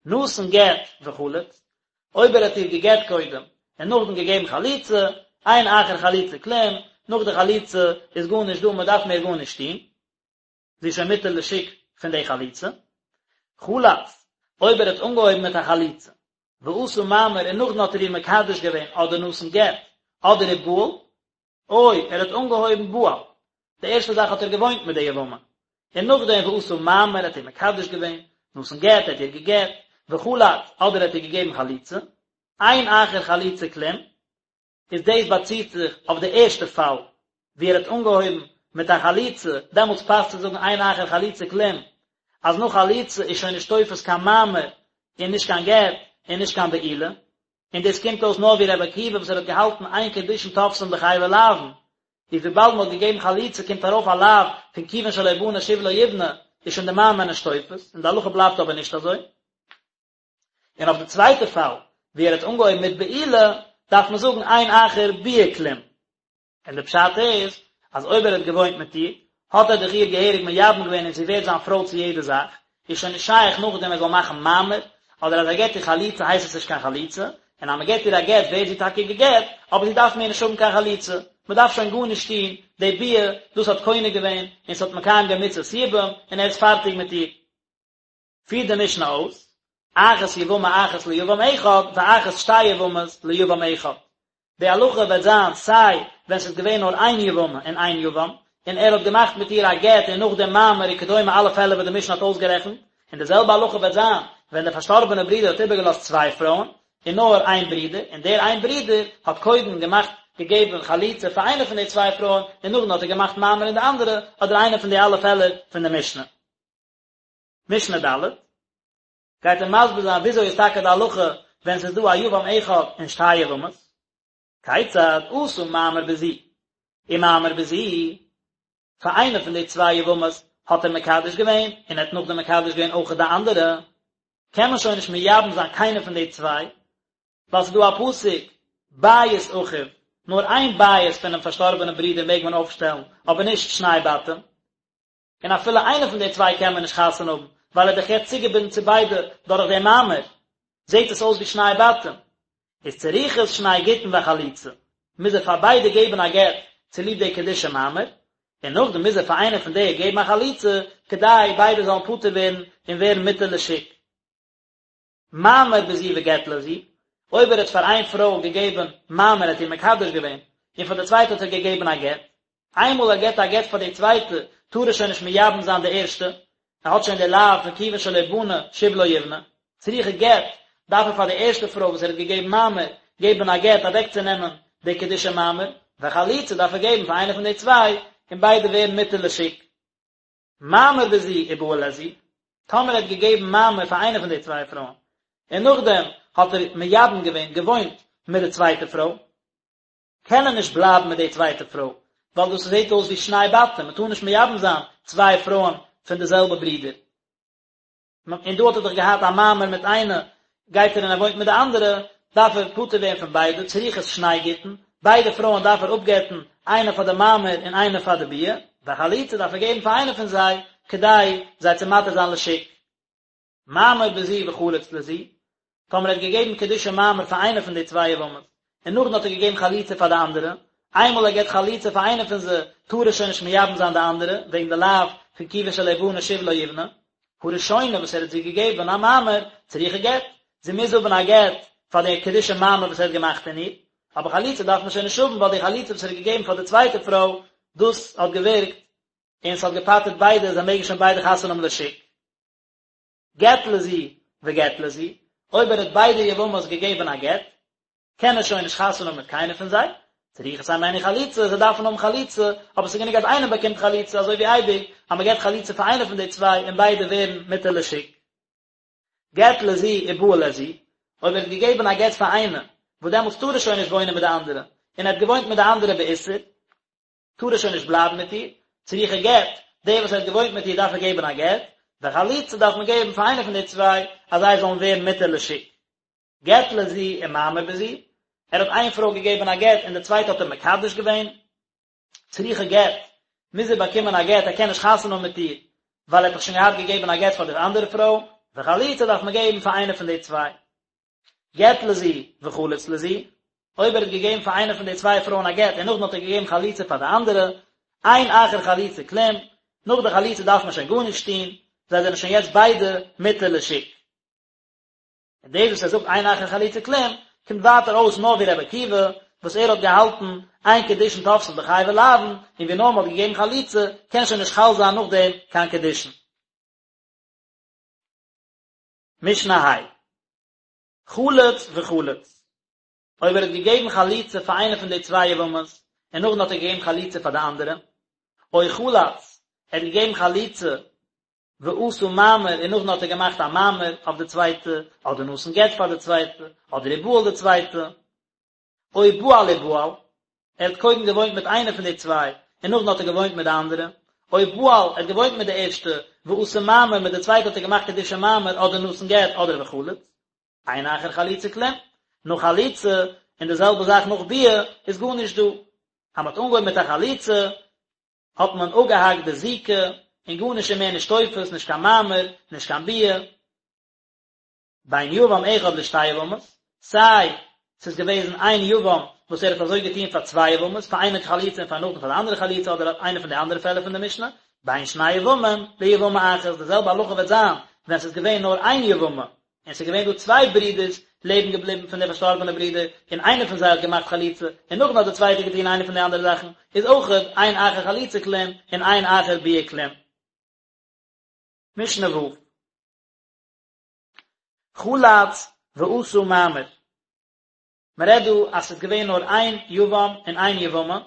נתן גט וחלץ, אויב ער האט איר געגט קודם און נאכדעם געגעבן חליצה, אין אחר חליצה כלום, נאך די חליצה איז גארנישט דא, מען דארף מער גארנישט טון. זי איז שוין מותר לשוק פון די חליצה. חלץ, אויב ער האט אנגעהויבן מיט א חליצה, ועשה מאמר און נאכדעם האט ער איר מקדש געווען אדער נתן גט, אדער ובעל, או ער האט אנגעהויבן בעל, די ערשטע זאך האט ער געוואוינט מיט די יבמה, און נאכדעם ועשה מאמר האט איר מקדש געווען, נתן גט האט איר געגט, וחלץ, אדער האט איר געגעבן חליצה, אין אחר חליצה כלום, איז דאס באציט זיך אויף די ערשטע פאל ווי ער האט אנגעהויבן מיט א חליצה, דעמאלטס פאסט צו זאגן אין אחר חליצה כלום, אז נאך חליצה איז שוין נישט תופס קיין מאמר און נישט קיין גט און נישט קיין בעילה, און דאס קומט אויס נאר ווי רבי עקיבא וואס ער האט געהאלטן אין קידושין תופסין בחייבי לאוין, איז וויבאלד מען האט געגעבן חליצה קומט ארויף א לאו פון כיוון שלא בנה שוב לא יבנה, איז שוין די מאמר נישט תופס, און די הלכה בלייבט אבער נישט אזוי. און אויף די צווייטע פאל ווי ער האט אנגעהויבן מיט בעילה דארף מען זאגן אין אחר ביאה כלום, און די פשט איז אז אויב ער האט געוואוינט מיט איר האט ער דאך איר געהעריג מייבם געווען און זי ווערט זיין פרוי צו יעדע זאך, איז שוין נישט שייך נאכדעם ער זאל מאכן מאמר, אדער אז ער געט איר חליצה הייסט עס נישט קיין חליצה, און אז מען געט איר א גט ווערט זי טאקע גע'גט, אבער זי דארף מער נישט האבן קיין חליצה, מען דארף שוין גארנישט טון, די ביאה, דאס האט קונה געווען, און ס'האט מקיים געווען מצות יבום, און ער איז פארטיג מיט איר. פירט די משנה אויס, אחת יבמה אחת ליבם אחד, ואחת שתי יבמות ליבם אחד. די הלכה וועט זיין סיי ווען ס'איז געווען נאר איין יבמה און איין יבם, און ער האט געמאכט מיט איר א גט און נאכדעם מאמר וכדומה אלע פעלער וואס די משנה האט אויסגערעכנט, און די זעלבע הלכה וועט זיין ווען דער פארשטארבענער ברודער האט איבערגעלאזט צוויי פרויען, און נאר איין ברודער, און דער איין ברודער האט קודם געמאכט געגעבן חליצה פאר איינע פון די צוויי פרויען, און נאכדעם האט ער געמאכט מאמר אין די אנדערע, אדער איינע פון די אלע פעלער פון די משנה. משנה ד', גייט ער מסביר זיין וויאזוי איז טאקע די הלכה ווען ס'איז דא א יבם אחד און שתי יבמות, כיצד עשה מאמר בזו ומאמר בזו, פאר איינע פון די צוויי יבמות האט ער מקדש געווען און ער האט נאכדעם מקדש געווען אויך די אנדערע, קען מען שוין נישט מייבם זיין קיינע פון די צוויי, ווייל ס'איז דא א פסוק בית אחיו, נאר איין בית פונעם פארשטארבענעם ברודער מעג מען אויפשטעלן, אבער נישט שני בתים. און אפילו איינע פון די צוויי קען מען נישט חתונה האבן, ווייל ער איז דאך יעצט צוגעבינדן צו ביידע דורך דעם מאמר, זעט עס אויס ווי שני בתים. איז צריכות שני גיטין וחליצה, מוז ער פאר ביידע געבן א גט צוליב די קידושי מאמר, און נאכדעם מוז ער פאר איינע פון די געבן א חליצה, כדי ביידע זאלן פטור ווערן און ווערן מותר לשוק. מאמר בזו וגט לזו, אויב ער האט פאר איין פרוי געגעבן מאמר האט איר מקדש געווען, און פאר די צווייטע האט ער געגעבן א גט, איינמאל ער געבט א גט פאר די צווייטע, טאר ער שוין נישט מייבם זיין די ערשטע, ער האט שוין די לאו פון כיוון שלא בנה שוב לא יבנה, צריכה גט, דארף ער פאר די ערשטע פרוי וואס ער האט געגעבן מאמר, געבן א גט אוועקצונעמען די קידושי מאמר, וחליצה דארף ער געבן פאר איינע פון די צוויי, און ביידע ווערן מותר לשוק. מאמר בזו ובעל לזו, טאמער ער האט געגעבן מאמר פאר איינע פון די צוויי פרויען, און נאכדעם האט ער מייבם געווען, געוואוינט, מיט די צווייטע פרוי, קען ער נישט בלייבן מיט די צווייטע פרוי, ווייל דאס זעט אויס ווי שני בתים, מען טאר נישט מייבם זיין צוויי פרויען פון די זעלבע ברודער. און דא האט ער דאך געהאט א מאמר מיט איינע, גייט ער און ער וואוינט מיט די אנדערע, דארף ער פטור ווערן פון ביידע, צריכות שני גיטין, ביידע פרויען דארף ער אפגט'ן, איינע פאר די מאמר און איינע פאר די ביאה, וחליצה דארף ער געבן פאר איינע פון זיי, כדי זיי צו מתיר זיין לשוק. מאמר בזו וחלץ לזו, טאמער ער האט געגעבן קידושי מאמר פאר איינע פון די צוויי יבמות, און נאכדעם האט ער געגעבן חליצה פאר די אנדערע, איינמאל ער געבט חליצה פאר איינע פון זיי, טאר ער שוין נישט מייבם זיין די אנדערע, וועגן די לאו פון כיוון שלא בנה שוב לא יבנה. הראשונה וואס ער האט זי געגעבן א מאמר, צריכה גט, זי מוז האבן א גט פאר די קידושי מאמר וואס ער האט געמאכט אין איר, אבער חליצה דארף מען שוין נישט האבן ווייל די חליצה וואס ער האט געגעבן פאר די צווייטע פרוי, דאס האט געווירקט און ס'האט געפטר'ט ביידע, זיי מעגן שוין ביידע חתונה האבן לשוק. גט לזו וגט לזו, אויב ער האט ביידע יבמות געגעבן א גט, קען ער שוין נישט חתונה האבן מיט קיינער פון זיי, צריכות הימנו חליצה, זיי דארפן האבן חליצה, אבער ס'איז גענוג אז איינער באקומט חליצה, אזוי ווי אייביג, אז מ'געבט חליצה פאר איינער פון די צוויי און ביידע ווערן מותר לשוק. גט לזו ובעל לזו, אויב ער האט געגעבן א גט פאר איינע, וואס דעמאלטס טאר ער שוין נישט וואוינען מיט די אנדערע, און ער האט געוואוינט מיט די אנדערע באיסור, טאר ער שוין נישט בלייבן מיט איר, צריכה גט, דער וואס ער האט געוואוינט מיט איר דארף ער געבן א גט, וחליצה דארף מען געבן פאר איינער פון די צוויי, אז זיי זאלן ווערן מותר לשוק. גט לזו ומאמר בזו, ער האט איין פרוי געגעבן א גט און די צווייטע האט ער מקדש געווען, צריכה גט, מוז ער באקומען א גט, ער קען נישט חתונה האבן מיט איר, ווייל ער האט דאך שוין געהאט געגעבן א גט פאר די אנדערע פרוי, וחליצה דארף מען געבן פאר איינע פון די צוויי. גט לזו וחלץ לזו, אויב ער האט געגעבן פאר איינע פון די צוויי פרויען א גט און נאכדעם האט ער געגעבן חליצה פאר די אנדערע, אין אחר חליצה כלום, נאך די חליצה דארף מען שוין גארנישט טון, זיי זענען שוין יעצט ביידע מותר לשוק. און דאס וואס ער זאגט אין אחר חליצה כלום, קומט ווייטער אויס נאר ווי רבי עקיבא, וואס ער האט געהאלטן אין קידושין תופסין בחייבי לאוין, און ווי נאר מען האט געגעבן חליצה, קען שוין נישט חל זיין נאכדעם קיין קידושין. משנה ה'. חלץ וחלץ. אויב ער האט געגעבן חליצה פאר איינע פון די צוויי יבמות, און נאכדעם האט ער געגעבן חליצה פאר די אנדערע, או חלץ, ער האט געגעבן חליצה ועשה מאמר און נאכדעם האט ער געמאכט א מאמר אויף די צווייטע, אדער נתן גט פאר די צווייטע, אדער ובעל די צווייטע, או בעל ובעל, ער האט קודם געוואוינט מיט איינע פון די צוויי, און נאכדעם האט ער געוואוינט מיט די אנדערע, או בעל, ער האט געוואוינט מיט די ערשטע, ועשה מאמר, מיט די צווייטע האט ער געמאכט קידושי מאמר, אדער נתן גט, אדער וחלץ. אין אחר חליצה כלום. נאך חליצה, און די זעלבע זאך נאך ביאה, איז גארנישט דא. אז מען האט אנגעהויבן מיט א חליצה, האט מען אפגעהאקט די זיקה, און גארנישט איז מער נישט תופס, נישט קיין מאמר, נישט קיין ביאה. בין יבם אחד לשתי יבמות, סיי ס'איז געוועזן איין יבם וואס ער האט אזוי געטון פאר צוויי יבמות, פאר איינע חליצה און פאר נאכדעם פאר די אנדערע חליצה אדער איינע פון די אנדערע פעלער פון די משנה, בין שני יבמים ליבמה אחת, די זעלבע הלכה וועט זיין ווען ס'איז געווען נאר איין יבמה, און ס'איז געווען דא צוויי ברידערס לעבן געבליבן פון די פארשטארבענע ברודער, און איינער פון זיי האט געמאכט חליצה, און נאכדעם האט די צווייטע געטון איינע פון די אנדערע זאכן, איז אויכעט אין אחר חליצה כלום און אין אחר ביאה כלום. משנה ו'. חלץ ועשה מאמר. מען רעדט דא אז ס'איז געווען נאר איין יבם און איין יבמה,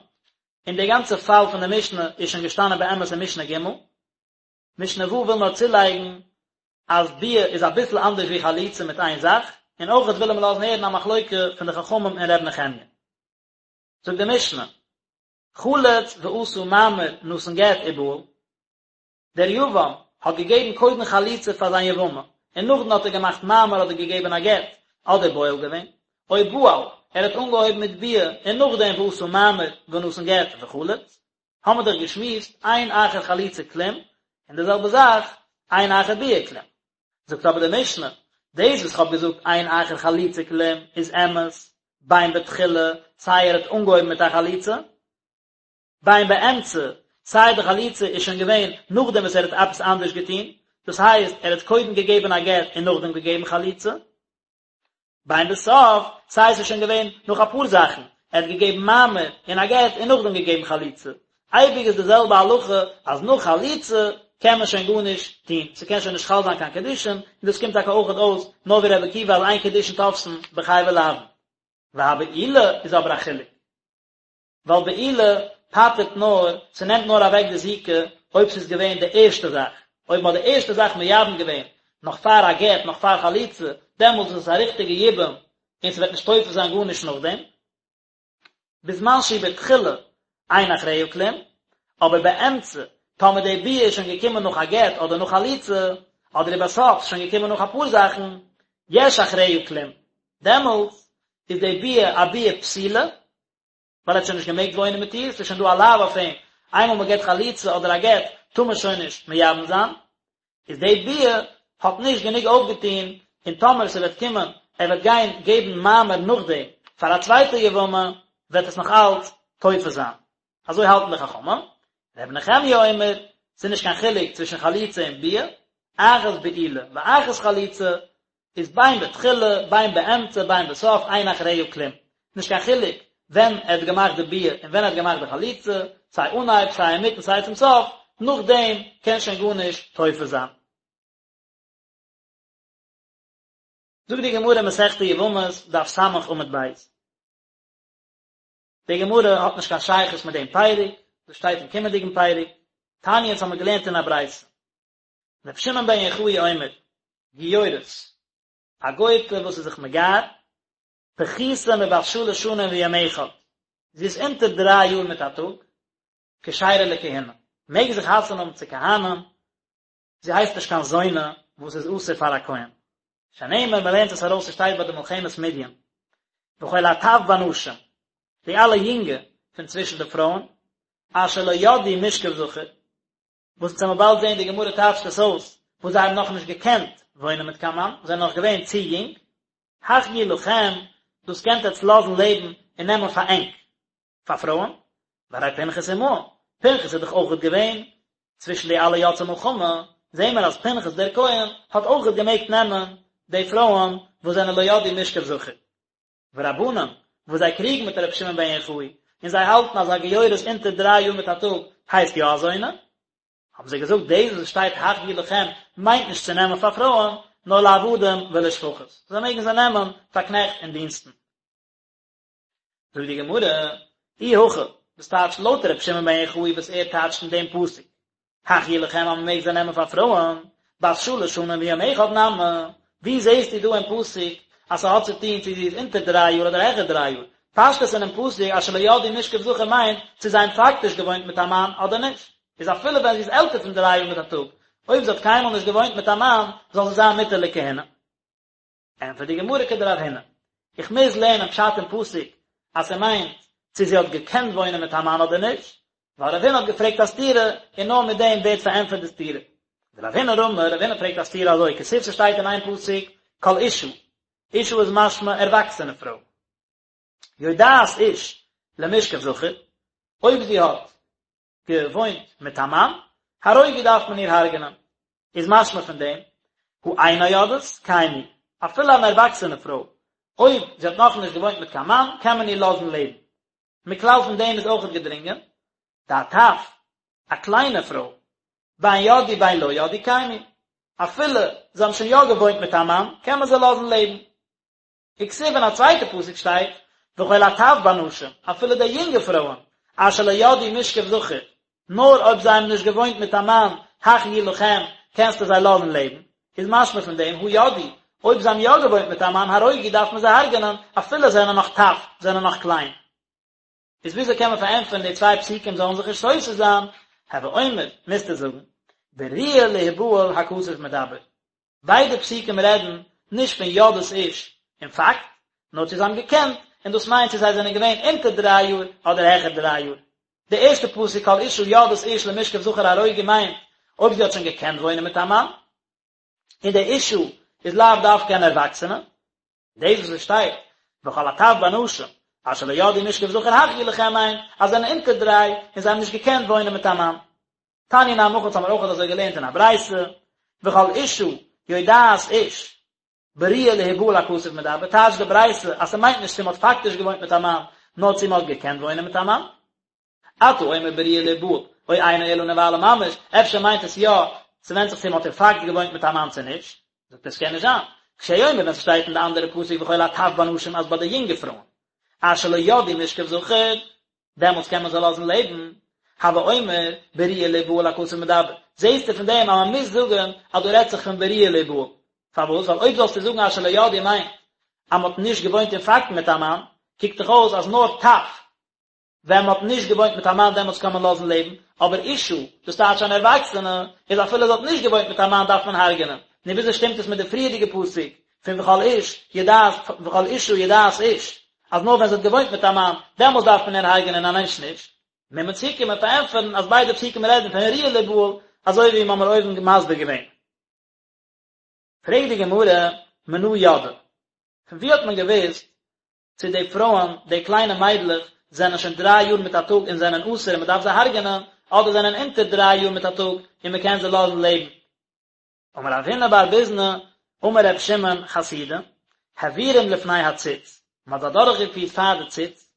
און די גאנצע פאל פון די משנה איז שוין געשטאנען באמת אין משנה ג'. משנה ו' וויל נאר צולייגן אז ביאה איז אביסל אנדערש ווי חליצה מיט איין זאך, און אויכעט וויל מען לאזן הערן א מחלוקה פון די חכמים און ר' נחמיה. זאגט די משנה, חלץ ועשה מאמר נתן גט ובעל, דער יבם האט געגעבן קודם חליצה פאר זיין יבמה, און נאכדעם האט ער געמאכט מאמר אדער געגעבן א גט, אדער בועל געווען, או בעל, ער האט אנגעהויבן מיט ביאה און נאכדעם ועשה מאמר ונתן גט וחלץ, האמער דאך געשמועסט אין אחר חליצה כלום, און די זעלבע זאך אין אחר ביאה כלום. זאגט אבער די משנה, דאס וואס כ'האב געזאגט אין אחר חליצה כלום איז אמת, בין בתחילה, סיי ער האט אנגעהויבן מיט א חליצה, בין באמצע, סיי די חליצה איז שוין געווען נאכדעם וואס ער האט עפעס אנדערש געטון, דאס הייסט ער האט קודם געגעבן א גט און נאכדעם געגעבן חליצה, בין בסוף, סיי עס איז שוין געווען נאך אפאר זאכן, ער האט געגעבן מאמר און א גט און נאכדעם געגעבן חליצה, אייביג איז די זעלבע הלכה אז נאך חליצה קען מען שוין גארנישט טון, ס'קען שוין נישט חל זיין קיין קידושין, און דאס קומט טאקע אויכעט אויס נאר ווי רבי עקיבא אז אין קידושין תופסין בחייבי לאוין. והבעילה איז אבער א חילוק. ווייל בעילה פטר'ט נאר, ס'נעמט נאר אוועק די זיקה אויב ס'איז געווען די ערשטע זאך, אויב מ'האט די ערשטע זאך מייבם געווען נאך פאר א גט, נאך פאר חליצה, דעמאלטס איז עס א ריכטיגע יבום און ס'וועט נישט תופס זיין גארנישט נאכדעם. בזמן שהיא בתחילה אין אחריה כלום, אבער באמצע, טאמער די ביאה איז שוין געקומען נאך א גט אדער נאך חליצה, אדער ובסוף, ס'איז שוין געקומען נאך אפאר זאכן, יש אחריה כלום, דעמאלטס איז די ביאה א ביאה פסולה, ווייל ער האט שוין נישט געמעגט וואוינען מיט איר, ס'איז שוין דא א לאו אויף אים, איינמאל מען געבט חליצה אדער א גט טאר מען שוין נישט מייבם זיין, איז די ביאה האט נישט גענוג אויפגעטון, און טאמער ס'וועט קומען ער וועט גיין געבן מאמר נאכדעם פאר א צווייטע יבמה וועט עס נאך אלץ תופס זיין, אזוי האלטן די חכמים, ר' נחמיה אומר, ס'איז נישט קיין חילוק צווישן חליצה און ביאה, אחת בעילה ואחת חליצה. איז בין בתחילה בין באמצע בין בסוף אין אחריה כלום, נישט קיין חילוק ווען ער האט געמאכט די ביאה און ווען ער האט געמאכט די חליצה, סיי אנהייב סיי אינמיטן סיי צום סוף, נאכדעם קען שוין גארנישט תופס זיין. זאגט די גמרא אין מסכת יבמות דף ס' עמוד ב'. די גמרא האט נישט קיין שייכות מיט דעם פרק, דאס שטייט אין קומענדיגן פרק, תניא אונז האמיר געלערנט אין א ברייתא, רבי שמעון בן יוחאי אומר, גיורת, א גוי'טע וואס איז זיך מגייר, פחותה מבת שלש שנים ויום אחד, זי איז אונטער דריי יאר מיט א טאג, כשרה לכהונה, מעג זי חתונה האבן צו כהנים, זי הייסט נישט קיין זונה וואס איז אסור פאר א כהן. שנאמר, מען לערנט עס ארויס ס'שטייט ביי די מלחמת מדין, וכל הטף בנשים, די אלע יונגע פון צווישן די פרויען, אשר לא ידעו משכב זכר, וואס אונז וועלן באלד זען די גמרא טייטשט עס אויס, וואס זיי האבן נאכנישט געקענט וואוינען מיט קיין מאן, זענען נאך געווען צו יונג, החיו לכם, דאס קענט עטץ לאזן לעבן און נעמען פאר ענק, פאר פרויען, והרי פנחס עמהם, פנחס איז דאך אויכעט געווען צווישן די אלע יוצאי מלחמה, זעהן מיר אז פנחס דער כהן האט אויכעט געמעגט נעמען די פרויען וואס זענען לא ידעו משכב זכר. ורבנן, וואס זיי קריגן מיט רבי שמעון בן יוחאי, און זיי האלטן אז א גיורת אונטער דריי יאר מיט א טאג הייסט יא א זונה, האבן זיי געזאגט דאס וואס שטייט החיו לכם מיינט נישט צו נעמען פאר פרויען, נאר לעבדים ולשפחות, זיי מעגן זיי נעמען פאר קנעכט און דינסטן. זאגט די גמרא, אי הכי, דאס טייטשט לויט רבי שמעון בן יוחאי וואס ער טייטשט אין דעם פסוק, החיו לכם אז מען מעג זיי נעמען פאר פרויען, בת שלש שנים ויום אחד נמי, ווי זעסטו דא אין פסוק אז ס'האט צו טון צו זי איז אונטער דריי יאר אדער העכער דריי יאר? פשטות אינעם פסוק אשר לא ידעו משכב זכר מיינט צו זיי האבן פאקטיש געוואוינט מיט א מאן אדער נישט, איז אפילו ווען זי איז עלטער פון דריי יאר מיט א טאג, אויב זי האט קיינמאל נישט געוואוינט מיט א מאן, זאל זי זיין מותר לכהונה. ענטפערט די גמרא כדרב הונא, איך מוז לערנען פשט אין פסוק אז ס'מיינט צו זי האט געקענט וואוינען מיט א מאן אדער נישט, ווייל רב הונא האט געפרעגט א סתירה און נאר מיט דעם ווערט פארענטפערט די סתירה. ורב הונא רמי, רב הונא פרעגט א סתירה אזוי, כתיב ס'שטייט אין איין פסוק כל אשה, אשה איז משמע ערוואקסענע פרוי, יודעת איש למשכב זכר, אויב זי האט געוואוינט מיט א מאן, הרוגו דארף מען איר הרג'נען. איז משמע פון דעם, הא אינה יודעת, קיימו, אפילו אן ערוואקסענע פרוי, אויב זי האט נאכנישט געוואוינט מיט קיין מאן, קען מען איר לאזן לעבן. מכלל פון דעם איז אויכעט געדרינגען, דהטף, א קליינע פרוי, בין ידעו בין לא ידעו קיימו, אפילו זיי האבן שוין יא געוואוינט מיט א מאן, קען מען זיי לאזן לעבן. וכתיב אין א צווייטע פסוק שטייט, וכל הטף בנשים, אפילו די יונגע פרויען, אשר לא ידעו משכב זכר, נאר אויב זיי האבן נישט געוואוינט מיט א מאן, החיו לכם, קענסטו זיי לאזן לעבן, איז משמע פון דעם, הא ידעו, אויב זיי האבן יא געוואוינט מיט א מאן, הרוגו דארף מען זיי הרג'נען, אפילו זיי זענען נאך טף, זענען נאך קליין. איז וויאזוי קען מען פארענטפערן די צוויי פסוקים זאלן זיך נישט סותר זיין, הוי אומר, מוזטו זאגן, בראויה להיבעל הכתוב מדבר. ביידע פסוקים רעדן נישט פון יודעת איש אין פאקט, נאר צו זיי האבן געקענט, און דאס מיינט צו זיי זענען געווען אונטער דריי יאר אדער העכער דריי יאר. די ערשטע פסוק כל אשה יודעת איש למשכב זכר הרוגו מיינט אויב זי האט שוין געקענט וואוינען מיט א מאן, און די אשה איז לאו דווקא אן ערוואקסענע. דאס וואס עס שטייט וכל הטף בנשים אשר לא ידעו משכב זכר החיו לכם מיינט אז זיי זענען אונטער דריי און זיי האבן נישט געקענט וואוינען מיט א מאן. תניא נמי הכי האבן מיר אויך אזוי געלערנט אין א ברייתא, וכל אשה יודעת איש בראויה להיבעל הכתוב מדבר, טייטשט די ברייתא אז ס'מיינט נישט צו מ'האט פאקטיש געוואוינט מיט א מאן, נאר צו מ'האט געקענט וואוינען מיט א מאן. אתה אומר בראויה להיבעל, או אינו אלא נבעלה ממש, אפשר מיינט עס יא, ס'ווענדט זיך צו מ'האט אין פאקט געוואוינט מיט א מאן צו נישט. זאגט ער ס'קען נישט זיין. כשהוא אומר ווען ס'שטייט אין די אנדערע פסוק וכל הטף בנשים אז ביי די יונגע פרויען, אשר לא ידעו משכב זכר, דעמאלטס קען מען זיי לאזן לעבן, הוי אומר בראויה להיבעל הכתוב מדבר, זעהסטו פון דעם אז מען מוז זאגן אז דא רעדט זיך פון בראויה להיבעל, פארוואס? ווייל אויב זאלסטו זאגן אשר לא ידעו מיינט אז מען האט נישט געוואוינט אין פאקט מיט א מאן, קוקט דאך אויס אז נאר טף ווען מען האט נישט געוואוינט מיט א מאן דעמאלטס קען מען לאזן לעבן, אבער אשה, דאס טייטש אן ערוואקסענע, איז אפילו זי האט נישט געוואוינט מיט א מאן דארף מען הרג'נען. נו וויאזוי שטימט עס מיט די פריערדיגע פסוק פון וכל איש יודעת וכל אשה יודעת איש, אז נאר ווען זי האט געוואוינט מיט א מאן, דעמאלטס דארף מען איר הרג'נען און א מענטש נישט? מוז מען צוקומען פארענטפערן אז ביידע פסוקים רעדן פון ראויה להיבעל, אזוי ווי מ'האמיר אויבן מסביר געווען. פרעגט די גמרא, מנא ידעי? פון וואו האט מען געוואוסט צו די פרויען, די קליינע מיידלעך, זענען שוין דריי יאר מיט א טאג און זענען אסור און מען דארף זיי הרג'נען, אדער זענען אונטער דריי יאר מיט א טאג און מען קען זיי לאזן לעבן? אמר רב הונא בר ביזנא. אמר ר' שמעון חסידא, העבירום לפני הציץ, מען האט זיי אדורכגעפירט פאר די ציץ,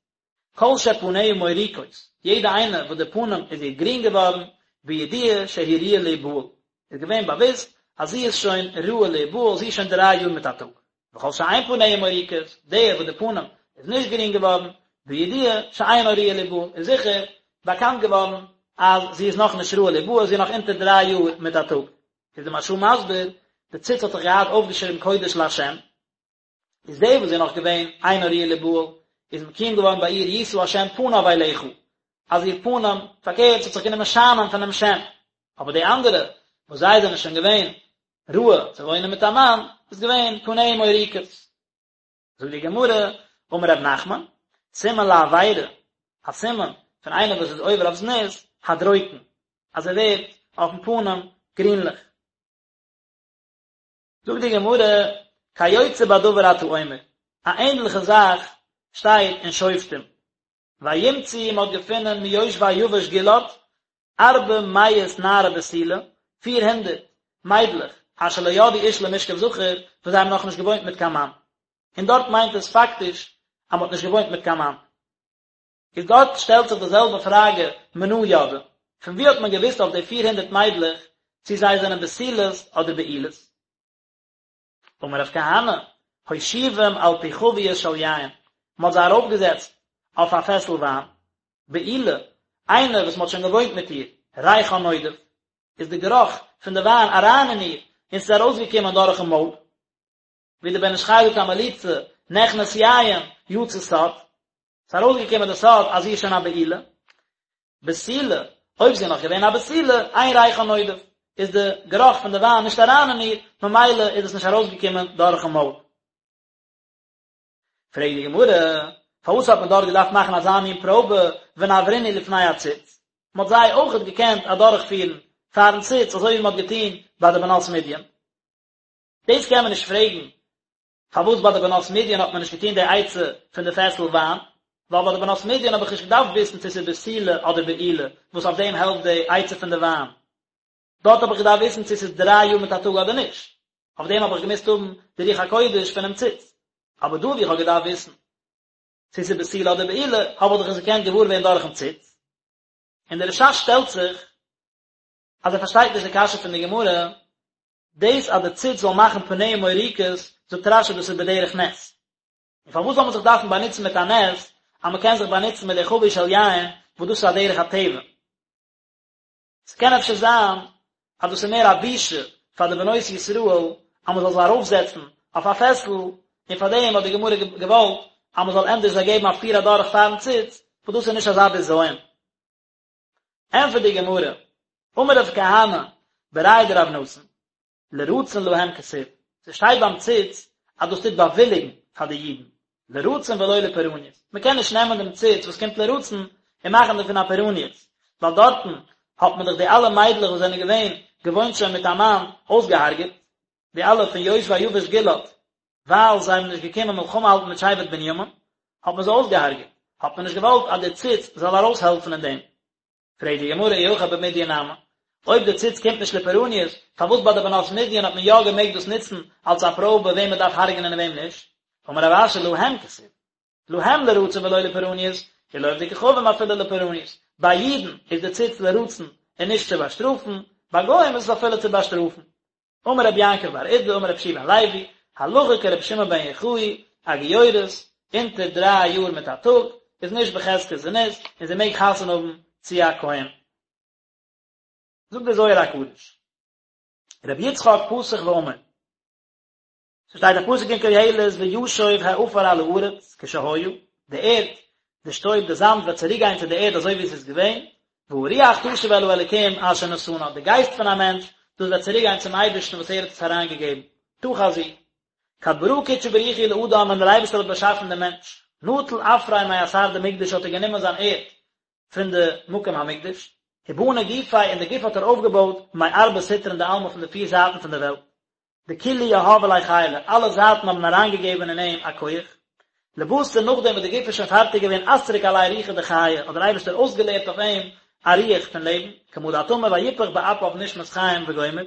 כל שפניה מוריקות, יעדע איינע וואס די פנים איז איר גרין געווארן, בידוע שהיא ראויה להיבעל, איז געווען באוואוסט אז זי איז שוין ראוי להיבעל, זי איז שוין דריי יאר מיט א טאג. וכל שאין פניה מוריקות, די וואס די פנים איז נישט גרין געווארן, בידוע שאינה ראויה להיבעל, איז זיכער באקאנט געווארן אז זי איז נאכנישט ראוי להיבעל, זי איז נאך אונטער דריי יאר מיט א טאג. איז די מהרש"א מסביר, די ציץ האט דאך געהאט אויפגעשריבן קודש לה', איז די וואס איז נאך געווען אינה ראויה להיבעל, איז מקוים געווארן ביי איר ישא השם פניו אליך, אז איר פנים, פארקערט, ס'האט זיך גענומען שיינען פונעם שם, אבער די אנדערע, וואס זיי זענען שוין געווען ראוי צו וואוינען מיט א מאן, איז געווען פניה מוריקות. זאגט די גמרא, אמר רב נחמן, סימן לעבירה, א סימן פון איינער וואס איז עובר אויף זנות, הדרוקן, אז ער ווערט אויפן פנים גרינליך. זאגט די גמרא, כיוצא בדבר אתה אומר, א ענדליכע זאך שטייט אין שופטים, וימצאו מען האט געפונען מיושבי יבש גלעד, ארבע מאות נערה בתולה, פיר הונדערט מיידלעך, אשר לא ידעו איש למשכב זכר, וואס זיי האבן נאכנישט געוואוינט מיט קיין מאן. און דארט מיינט עס פאקטיש אז מען האט נישט געוואוינט מיט קיין מאן. איז דארט שטעלט זיך די זעלבע פראגע מנא ידעי, פון וואו האט מען געוואוסט אויף די פיר הונדערט מיידלעך צי זיי זענען בתולות אדער בעולות? אמר רב כהנא, הושיבום על פי חבית של יין, מען האט זיי ארויפגעזעצט אויף א פעסל וויין, בעולה, איינער וואס מען האט שוין געוואוינט מיט איר, ריחה נודף, איז די גערוך פון די וויין אריין אין איר און ס'איז ארויסגעקומען דורכן מויל, ווי דער בן איש חי זאגט א מליצה, נכנס יין, יצא סוד, ס'איז ארויסגעקומען די סוד אז זי איז שוין א בעולה. בתולה, אויב זי איז נאך געווען א בתולה, אין ריחה נודף, איז די גערוך פון די וויין נישט אריין אין איר, ממילא איז עס נישט ארויסגעקומען דורכן מויל. פרעגט די גמרא, פארוואס האט מען דארט געדארפט מאכן אזא מין פראבע, ונעברינהו לפני הציץ? מען האט זיי אויכעט געקענט אדורכפירן פארן ציץ, אזוי ווי מען האט געטון ביי די בנות מדין. דאס קען מען נישט פרעגן, פארוואס ביי די בנות מדין האט מען נישט געטון די עצה פון די פעסל וויין, ווייל ביי די בנות מדין האב איך נישט געדארפט וויסן צו ס'איז בתולה אדער בעולה, וואס אויף דעם העלפט די עצה פון די וויין. דארט האב איך געדארפט וויסן צו ס'איז דריי יאר מיט א טאג אדער נישט, אויף דעם האב איך געמוזט האבן די רוח הקודש פונעם ציץ. אבער דא וואו איך האב געדארפט וויסן צו ס'איז בתולה אדער בעולה, האב איך דאך עס געקענט געוואר ווערן דורכ'ן ציץ. און דער רש"ש שטעלט זיך אז ער פארשטייט נישט די קשיא פון די גמרא, דאס אז די ציץ זאל מאכן פניה מוריקות, זאגט רש"י דאס איז בדרך נס. און פארוואס זאל מען זיך דארפן באנוצן מיט א נס, אז מען קען זיך באנוצן מיט די חבית של יין, וואס דאס איז א דרך הטבע. ס'קען אפשר זיין אז דאס איז מער א בושה פאר די בנות ישראל אז מען זאל זיי ארויפזעצן אויף א פעסל, און פאר דעם האט די גמרא געוואלט אז מען זאל ענדערש זיי געבן א פיר אדורך פארן ציץ, וואס דאס איז נישט אזא בזיון. ענטפערט די גמרא, אמר רב כהנא בריה דרב נתן, לרצון להם כתיב, ס'שטייט ביים ציץ אז דאס טוט באוויליגן פאר די אידן, לרצון ולא לפורעניות, מ'קען נישט נעמען דעם ציץ וואס קומט לרצון און מאכן דערפון א פורעניות, ווייל דארטן האט מען דאך די אלע מיידלעך וואס זענען געווען געוואוינט שוין מיט א מאן אויסגעהארגעט, די אלע פון יושבי יבש גלעד, ווייל זיי האבן נישט געקומען מלחמה האלטן מיט שבט בנימין, האט מען זיי אויסגעהארגעט, האט מען נישט געוואלט אז די ציץ זאל ארויסהעלפן אין דעם. פרעגט די גמרא אי הכי במדין נמי, אויב די ציץ קומט נישט לפורעניות, פארוואס ביי די בנות מדין האט מען יא געמעגט דאס נוצן אלס א פראבע וועם מען דארף הרג'נען און וועם נישט? אמר רב אשי להם כתיב, להם לרצון ולא לפורעניות, ולעובדי כוכבים אפילו לפורעניות, ביי אידן איז די ציץ לרצון און נישט צו באשטראפן, ביי גוים איז עס אפילו צו באשטראפן. אמר רבי יעקב בר אידי אמר רבי יהושע בן לוי, הלכה כרבי שמעון בן יוחאי, א גיורת, אונטער דריי יאר מיט א טאג, איז נישט בחזקת זנות, און זי מעג חתונה האבן צו א כהן. זאגט דער זוהר הקדוש, רבי יצחק פתח ואמר, ס'שטייט א פסוק אין קהלת וישוב העפר על הארץ כשהיה, די ערד, די שטויב, די זאמד וועט צוריק גיין צו די ערד אזוי ווי עס איז געווען, והרוח תשוב אל האלוקים אשר נתנה, די גייסט פון א מענטש, דאס וועט צוריק גיין צום אייבערשטן וואס ער האט עס אריינגעגעבן. תא חזי. כד ברא קודשא בריך הוא לאדם ווען דער אייבערשטער האט באשאפן דעם מענטש, נטל עפריה מאתר דמקדש האט ער גענומען זיין ערד פון די מקום המקדש, ובני גופיה און די גוף האט ער אויפגעבויט מארבע סטרין דעלמא פון די פיר זייטן פון די וועלט, דכלהו יהבו ליה חילא, אלע זייטן האבן אריינגעגעבן אין אים א כח. לבתר נאכדעם וואס די גוף איז שוין פארטיג געווען אסריק עליה רוחא דחיי, האט דער אייבערשטער אויסגעלערט אויף אים א רוח פון לעבן, כמה דאת אמר ויפח באפיו נשמת חיים וגומר.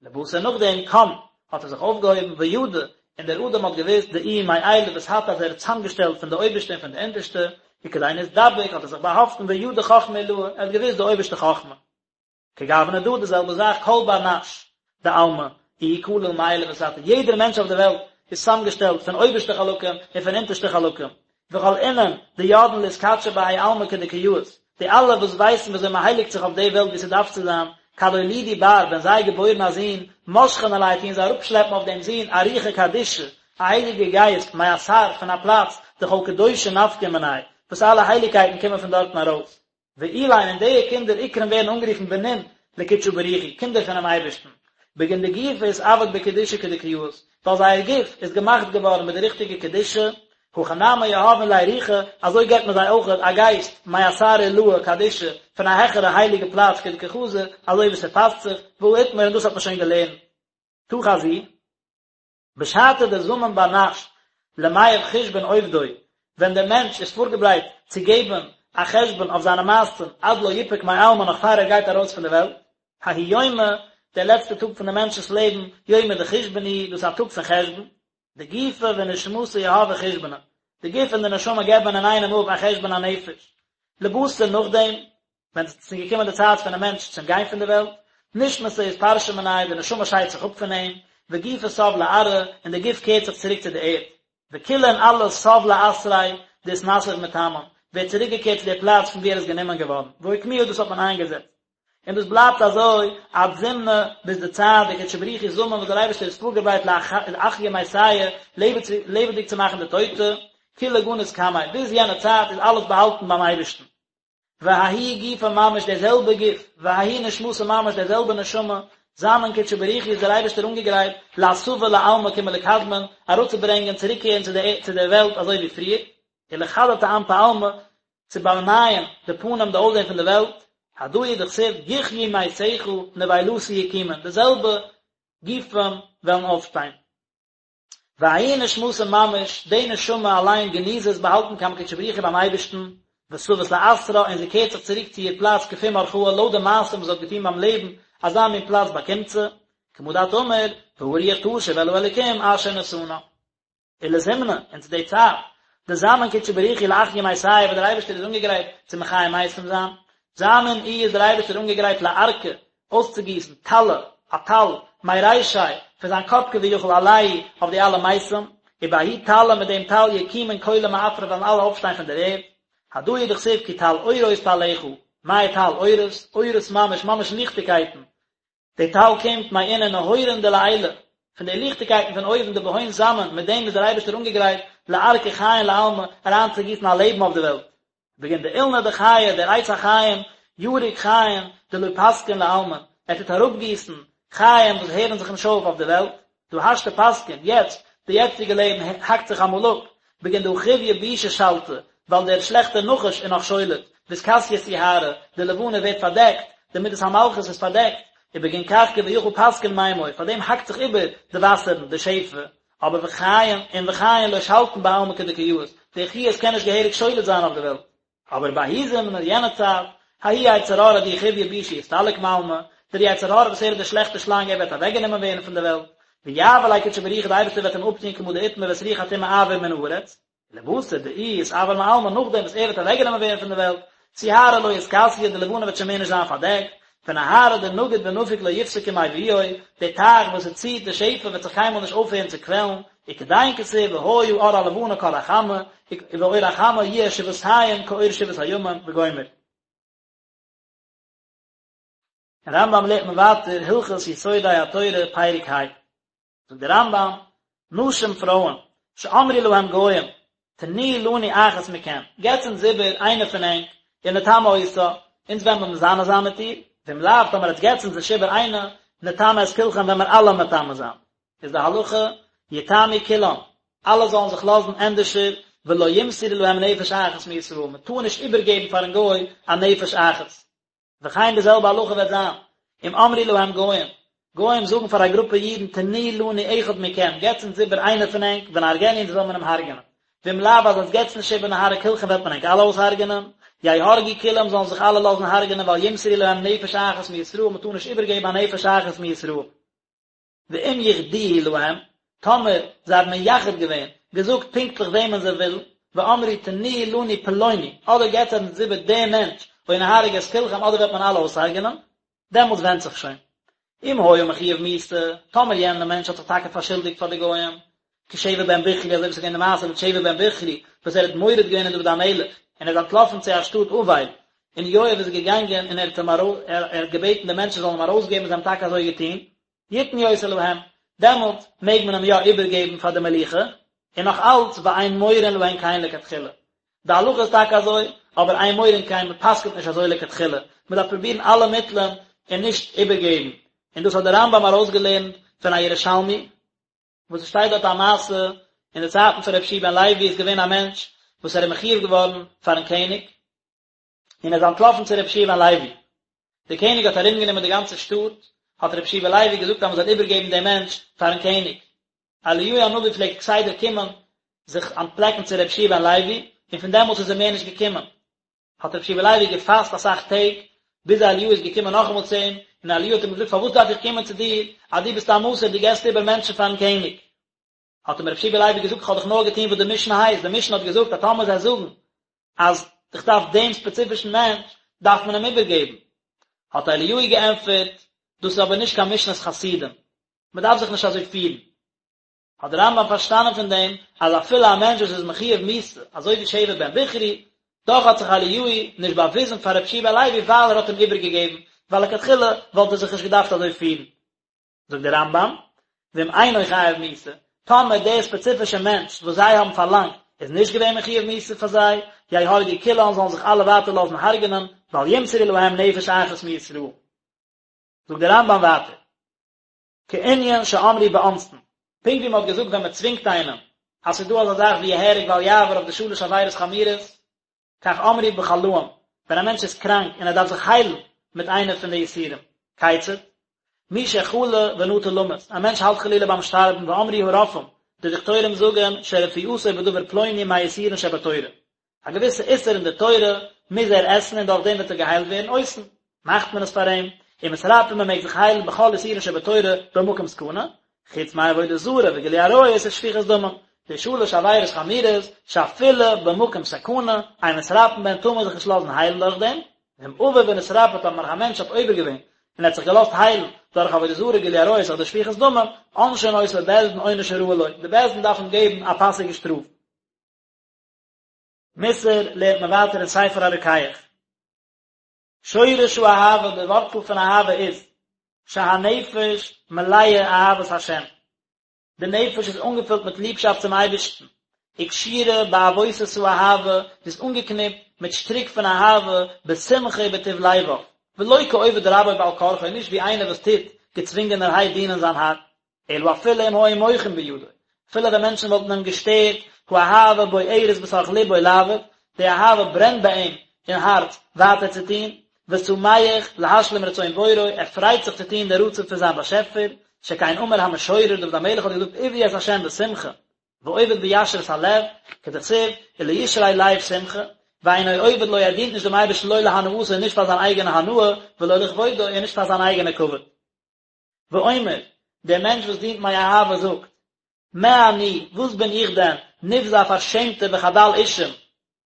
לבתר נאכדעם קם. האט ער זיך אויפגעהויבן, וידע, און דער אדם האט געוואוסט, דאיהו מעילא ותתא אז ער האט צוזאמגעשטעלט פון די אויבערשטע און פון די אונטערשטע, וכדין אתדבק האט ער זיך באהאפטן וידע חכמה עילאה, ער האט געוואוסט די אויבערשטע חכמה. כגוונא דא די זעלבע זאך כל בר נש דעלמא איהו כליל מעילא ותתא יעדער מענטש אויף די וועלט איז צוזאמגעשטעלט פון אויבערשטע חלקים און פון אונטערשטע חלקים וכל אינון דידעין לאתקדשא בהאי עלמא כדקא יאות די אלע וואס ווייסן ווי אזוי מען הייליגט זיך אויף די וועלט ווי ס'דארף צו זיין כד אולידו בר ווען זיי געבוירן א זון משכין עליה טוען זיי אראפשלעפן אויף דעם זון א רוחא קדישא א הייליגע גייסט מאתר פון א פלאץ דכל קדושא נפקא מניה וואס אלע הייליגקייטן קומען פון דארטן ארויס. ואלין און די קינדער אקרון ווערן אנגערופן בנין לקודשא בריך הוא, קינדער פונעם אייבערשטן, בגין דגופא אתעביד בקדושה כדקא יאות, ווייל זייער גוף איז געמאכט געווארן מיט די ריכטיגע קדושה, הכי נמי יהבין ליה רוחא, אזוי געבט מען זיי אויך א גייסט, מאתר עילאה קדישא, פון א העכערע הייליגע פלאץ כדקא חזי, אזוי ווי ס'פאסט זיך, והא אתמר און דאס האט מען שוין געלערנט. תא חזי. בשעתא דזמין בר נש למיהב חושבן עובדוי, ווען דער מענטש איז פארגעברייט צו געבן א חשבון אויף זיינע מעשים עד לא יפוק מעלמא נאך פאר ער גייט ארויס פון די וועלט, ההוא יומא, דער לעצטער טאג פון דעם מענטשנ'ס לעבן, יומא דחושבן הוא, דאס איז א טאג פון חשבון, דגופא ונשמתא יהבי חושבנא, די גוף און די נשמה געבן אינאיינעם אפ א חשבון הנפש, לבתר נאכדעם, ווען עס איז געקומען די צייט פונעם מענטש צום גיין פון די וועלט, נשמתא אתפרשא מניה, די נשמה שיידט זיך אפ פון אים, וגופא תב לארעא, און די גוף קערט זיך צוריק צו די ערד. וכולא און אלעס תב לאתריה דאתנסיב מתמן, ווערט צוריקגעקערט צו די פלאץ פון וואו ער איז גענומען געווארן, ואוקמוה דאס האט מען איינגעזעצט. און דאס בלייבט אזוי עד זמנא ביז די צייט דקודשא בריך הוא זמין וואס דער אייבערשטער איז פארגעברייט לאחיא מתיא לעבעדיג צו מאכן די טויטע, כולא גניז קמיה, ביז יענע צייט איז אלעס באהאלטן ביים אייבערשטן. וההוא גופא ממש דער זעלבע גוף, וההיא נשמתא ממש דער זעלבע נשמה, זמין קודשא בריך הוא איז דער אייבערשטער אנגעגרייט לאתבא לעלמא כמלקדמין, אראפצוברענגען צוריקקערן צו די צו דער וועלט אזוי ווי פריער, ולחדטא אנפי עלמא, צו באנייען די פנים די אויסזען פון די וועלט, הדא הוא דכתיב יחיו מתיך נבילתי יקומון, די זעלבע גופים וועלן אויפשטיין. וההיא נשמתא ממש, די נשמה אליין גניזא איז באהאלטן קמי קודשא בריך הוא ביים אייבערשטן, ותבית לאתרה און זי קערט זיך צוריק צו איר פלאץ כפום אורחהא לויט די מעשים וואס זי האט געטון ביים לעבן, אזא מין פלאץ באקומט זי, כמה דאת אמר, והרוח תשוב אל האלוקים אשר נתנה. ולזמנא, און צו די צייט, דזמין קודשא בריך הוא לאחיא מתיא וואס דער אייבערשטער איז אנגעגרייט צו מחיה מתים זיין, זמין איהו איז דער אייבערשטער אנגעגרייט לארקא, אויסצוגיסן, טלא, א טל, מרישיה, פון זיין קאפ כביכול עלייהו, אויף די אלע מתים, ובההוא טלא מיט דעם טל יקומון כולא מעפרא וועלן אלע אויפשטיין פון דער ערד, הדא הוא דכתיב כי טל אורות טלך, מאי טל אורות, אורות ממש, ממש ליכטיגקייטן, די טל קומט מאינון נהורין דלעילא, פון די ליכטיגקייטן פון אויבן דבהון זמין, מיט דעם איז דער אייבערשטער אנגעגרייט לארקא חיין לעלמא, אריינצוגיסן א לעבן אויף די וועלט. בגין דאילנא דחיי, דער עץ החיים, יריק חיין, דלא פסקין לעלמין, ער טוט אראפגיסן חיים וואס הערן זיך נישט אויף אויף די וועלט, דהא השתא פסקין, יעצט, די יעצטיגע לעבן האקט זיך אמאל אפ, בגין דהא חויא בישא שלטא, ווייל דער שלעכטער נחש איז נאך שולט, ואתכסיא סיהרא, די לבנה ווערט פארדעקט, די מידת המלכות איז פארדעקט, ובגין כך כביכול פסקין מימוי, פאר דעם האקט זיך איבער די וואסערן, די שפע, אבער וחיין, און וחיין לא שלטין בעלמא כדקא יאות, די חיות קען נישט געהעריג שולט זיין אויף די וועלט. אבער בההוא זמנא יענע צייט, ההוא יצר הרע דאיהו חויא בישא יסתלק מעלמא, דער יצר הרע וואס ער איז דער שלעכטער שלאנג ער וועט אוועקגענומען ווערן פון דער וועלט, ויעביר ליה קודשא בריך הוא די אייבערשטער וועט אים אפטון כמה דאתמר ואת רוח הטומאה אעביר מן הארץ, לבתר דאיהו אתעבר מעלמא נאכדעם וואס ער וועט אוועקגענומען ווערן פון די וועלט, סיהרא לא אתכסיא די לבנה וועט שוין מער נישט זיין פארדעקט, ונהרא דנגיד ונפיק לא יפסקו מיבועיה, די טייך וואס עס ציט די שפע וועט זיך קיינמאל נישט אויפהערן צו קוועלן, וכדין כתיב והיה אור הלבנה כאור החמה, ואור החמה יהיה שבעתים כאור שבעת הימים וגומר. אין רמב"ם לערנט מען ווייטער הלכות יסודי התורה פרק ה'. זאגט דער רמב"ם, נשים פרויען, שאמרו להם גוים, תנו לנו אחת מכם, געטס אונז איבער איינע פון ענק, ונטמא אותה, אונז וועלן מיר מזנה זיין מיט איר, ואם לאו, טאמער עטס געטס אונז נישט איבער איינע, נטמא את כולכם וועלן מיר אלע מטמא זיין. איז די הלכה, יטמאו כולם, אלע זאלן זיך לאזן ענדערשער, ולא ימסרו להם נפש אחת מישראל, מען טאר נישט איבערגעבן פארן גוי א נפש אחת. וכן די זעלבע הלכה וועט זיין, אם אמרו להם גוים, גוים זאגן פאר א גרופע אידן תנו לנו אחד מכם, געטס אונז איבער איינער פון ענק, ונהרגנו אונז וועל מען אים הרג'נען. ואם לאו אז עטס געטס נישט איבער נהרוג כולכם וועט מען ענק אלע אויסהרג'נען. יהרגו כולם זאלן זיך אלע לאזן הרג'נען ואל ימסרו להם נפש אחת מישראל, מען טאר נישט איבערגעבן א נפש אחת מישראל. ואם יחדוהו להם, טאמער זיי האבן מייחד געווען, געזאגט פונקטליך וועמען זיי ווילן, ואמרו תנו לנו פלוני, אדער געבט אונז איבער דעם מענטש, או נהרוג את כולכם, אדער וועט מען אלע אויסהרג'נען, דעמאלטס ווענדט זיך שוין. אם היה מחויב מיתה, טאמער יענער מענטש האט זיך טאקע פארשולדיגט פאר די גוים, כשבע בן בכרי, אזוי ווי ס'איז געווען די מעשה מיט שבע בן בכרי, וואס ער האט מורד געווען אין דוד המלך, און ער איז אנטלאפן צו א שטאט אבל, און יואב איז געגאנגען און ער האט אים ער האט געבעטן די מענטשן זאלן אים ארויסגעבן און זיי האבן טאקע אזוי געטון, יתנו אותו להם, דעמאלט מעג מען אים יא איבערגעבן פאר די מלוכה, און נאך אלץ ואין מורין להן כן לכתחילה. די הלכה איז טאקע אזוי, אבער אין מורין כן, מען פסק'נט נישט אזוי לכתחילה, מען דארף פרובירן אלע מיטלען און נישט איבערגעבן, און דאס האט דער רמב"ם ארויסגעלערנט פון א ירושלמי, וואס עס שטייט דארט א מעשה, אין די צייטן פון רבי יהושע בן לוי איז געווען א מענטש וואס ער איז מחויב געווארן פארן קעניג, און ער איז אנטלאפן צו רבי יהושע בן לוי. דער קעניג האט ארומגענומען די גאנצע שטאט, האט רבי יהושע בן לוי געזאגט אז מען זאל איבערגעבן דעם מענטש פארן קעניג. אליהו הנביא פלעגט כסדר קומען זיך אנטפלעקן צו רבי יהושע בן לוי, און פון דעמאלטס איז ער מער נישט געקומען. האט רבי יהושע בן לוי געפאסט אסאך טעג, ביז אליהו איז געקומען נאכאמאל צו אים, און אליהו האט אים געזאגט פארוואס דארף איך קומען צו דיר, אז דו ביסט א מסור, דו געבסט איבער מענטשן פארן קעניג. האט אים רבי יהושע בן לוי געזאגט איך האב דאך נאר געטון וואס די משנה הייסט, די משנה האט געזאגט אז טאמער זיי זאגן אז איך דארף דעם ספעציפישן מענטש, דארף מען אים איבערגעבן. האט אליהו געענטפערט, דאס איז אבער נישט קיין משנת חסידים, מען דארף זיך נישט אזוי פירן. האט דער רמב"ם פארשטאנען פון דעם אז אפילו א מענטש וואס איז מחויב מיתה, אזוי ווי שבע בן בכרי, דאך האט זיך אליהו נישט באוויזן פאר רבי יהושע בן לוי ווייל ער האט אים איבערגעגעבן, ווייל לכתחילה וואלט ער זיך נישט געדארפט אזוי פירן. זאגט דער רמב"ם, ואם אינו חייב מיתה, טאמער דער ספעציפישער מענטש וואס זיי האבן פארלאנגט איז נישט געווען מחויב מיתה פאר זיי, יהרגו כולן זאלן זיך אלע ווייטער לאזן הרג'נען, ואל ימסרו להם נפש אחת מישראל. זאגט דער רמב"ם ווייטער, כענין שאמרו באונסין, פונקט ווי מען האט געזאגט ווען מען צווינגט איינעם, אז ס'איז דא אזא זאך ווי יהרג ואל יעבור אויף די שלש עבירות חמורות, כך אמרו בחלאים, ווען א מענטש איז קראנק און ער דארף זיך היילן מיט איינע פון די איסורים. כיצד? מי שחלה ונטה למות, א מענטש האלט חלילה ביים שטארבן ואמרו הרופאים, די דאקטוירים זאגן שרפואתו בדבר פלוני מהאיסורין שבתורה, א געוויסע איסור אין די תורה מוז ער עסן און דורך דעם וועט ער געהיילט ווערן, עושין, מאכט מען עס פאר אים, ומתרפאין מען מעג זיך היילן בכל איסורין שבתורה במקום סכנה, חוץ מעבודה זרה וגילוי עריות ושפיכות דמים, די שלש עבירות חמורות שאפילו במקום סכנה, אין מתרפאין בהן טאר מען זיך נישט לאזן היילן דורך דעם, ואם עבר ונתרפא טאמער א מענטש האט עובר געווען און ער האט זיך געלאזט היילן דורך עבודה זרה גילוי עריות אדער שפיכות דמים, עונשין אותו בית דין עונש הראוי לו, די בית דין דארף אים געבן א פאסיגע שטראף. מוסר לערנט מען ווייטער אין ספר הרוקח. שורש האהבה, די ווארצל פון אהבה איז, שהנפש מלאה אהבת השם, די נפש איז אנגעפילט מיט ליבשאפט צום אייבערשטן, וקשורה בעבותות האהבה, זי איז אנגעקניפט מיט שטריק פון אהבה, בשמחה ובטוב לבב, ולא כעובד רבו בעל כרחו, נישט ווי איינער וואס טוט געצווינגענערהייט דינען זיין האר. אלא אפילו אם היו מוחין בידו, אפילו ווען מענטשן וואלטן אים געשטערט, האהבה בוערת בתוך לבו לעבוד, די אהבה ברענט ביי אים אין הארץ ווייטער צו טון, ושמח להשלים רצון בוראו, ער פרייט זיך צו טון די רצון פון זיין באשעפער, שכן אמר המשורר, דוד המלך האט געזאגט עבדו את ה' בשמחה, ועובד בישרות הלב, כדכתיב, ולישרי לב שמחה, ואינו עובד לו ער דינט נישט דעם אייבערשטן לא להנאתו נישט פאר זיין אייגענע הנאה, ולא לכבודו און נישט פאר זיין אייגענע כבוד. ואומר, דער מענטש וואס דינט מאהבה זאגט, מה אני, וואס בין איך דען, נבזה א פארשעמטער וחדל אישים,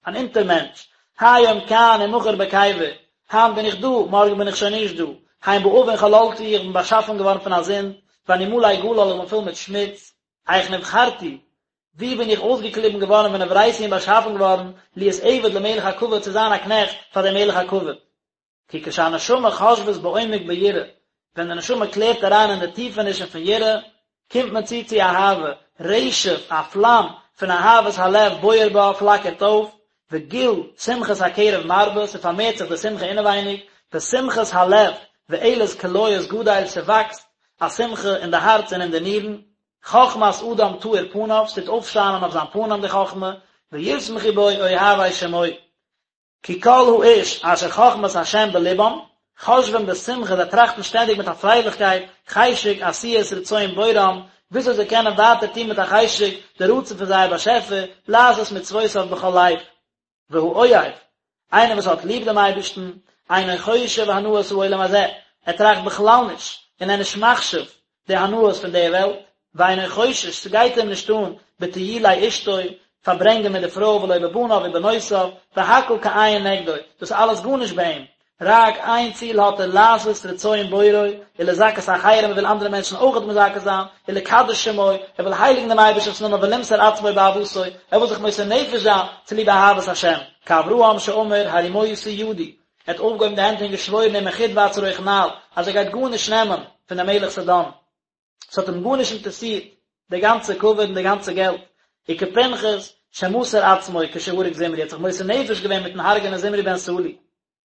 אן אונטערמענטש, היום כאן ומחר בקבר, היינט בין איך דא, מארגן בין איך שוין נישט דא, הן בעוון חללתי, איך בין באשאפן געווארן פון א זינד, ואני מלא גלל, איך בין פול מיט שמוץ, איך נבחרתי, ווי בין איך אויסגעקליבן געווארן ונבראתי און באשאפן געווארן, להיות עבד למלך הכבוד, צו זיין א קנעכט פאר דעם מלך הכבוד. כי כשהנשמה חושבת בעומק ביראה, ווען די נשמה קלערט אריין אין די טיפענישן פון יראה, קומט מען צו צו אהבה, רשף, א פלאם, פון אהבת הלב בוער בה, פלאקערט אויף, וגיל שמחת הקרב מרבה, ס'פארמערט זיך די שמחה אינעווייניג, ושמחת הלב ואלת כליות גדל, ס'וואקסט א שמחה אין די הארץ און אין די נירן, חכמת אדם תאיר פניו, ס'טוט אויפשיינען אויף זיין פנים די חכמה, וישמחו בו אוהבי שמו. כי כל האיש אשר חכמת השם בלבם, חושבים בשמחה, זיי טראכטן שטענדיג מיט א פרייליכקייט, חשק עשיית רצון בוראם, וויאזוי זיי קענען ווייטער טון מיט א חשק די רצון פון זייער באשעפער, לעשות מצוותיו בכל לב. והאוהב, איינער וואס האט ליב דעם אייבערשטן, אינו חושב הנאת העולם הזה, ער טראכט בכלל נישט, און ער איז נישט מחשיב. די הנאות פון די וועלט, ואינו חושש, ס'גייט אים נישט אן בטיולי אשתו, פארברענגען מיט די פרוי ולא בבניו ובנותיו, והכל כאין נגדו, דאס איז אלעס גארנישט ביי אים, רק איין ציל האט ער לעשות רצון בוראו, ולזכות אחרים, ער וויל אנדערע מענטשן אויכעט מזכה זיין, ולקדש שמו, ער וויל הייליגן דעם אייבערשטנ'ס נאמען ולמסור עצמו באהבתו, ער וויל זיך מוסר נפש זיין צוליב אהבת השם, כאברהם שאמר הרימותי ידי, ער האט אויפגעהויבן די הענט און געשוואוירן ומחוט ועד שרוך נעל, אז ער גייט גארנישט נעמען פון דעם מלך סדום. ס'האט אים גארנישט אינטערעסירט די גאנצע כבוד און די גאנצע געלט. וכפנחס שמסר עצמו כשהרג זמרי, ער האט זיך מוסר נפש געווען מיטן הרג'ענען זמרי בן סלוא.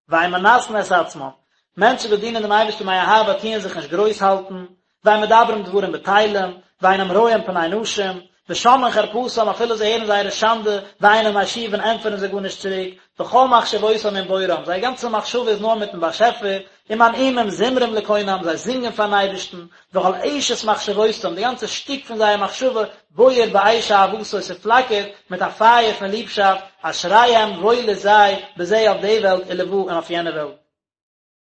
ואין מנשאין את עצמם, מענטשן וואס דינען דעם אייבערשטן מאהבה טוען זיך נישט גרויס האלטן, ואין מדברים דברים בטלים, ואינם רואים פני נשים, ושומעין חרפתם אפילו זיי הערן זייערע שאנדע, ואינם משיבין ענטפערן זיי גארנישט צוריק, וכל מחשבותם עם בוראם, זייער גאנצע מחשבה איז נאר מיטן באשעפער, ומנעימים זמרים לקונם, זיי זינגען פארן אייבערשטן, וכל אשת מחשבותם, די גאנצע שטיק פון זייער מחשבה, בוער באש אהבתו, ס'פלאקערט מיט א פייער פון ליבשאפט, אשריהם וואויל איז זיי, בזה אויף די וועלט ולבא און אויף יענע וועלט.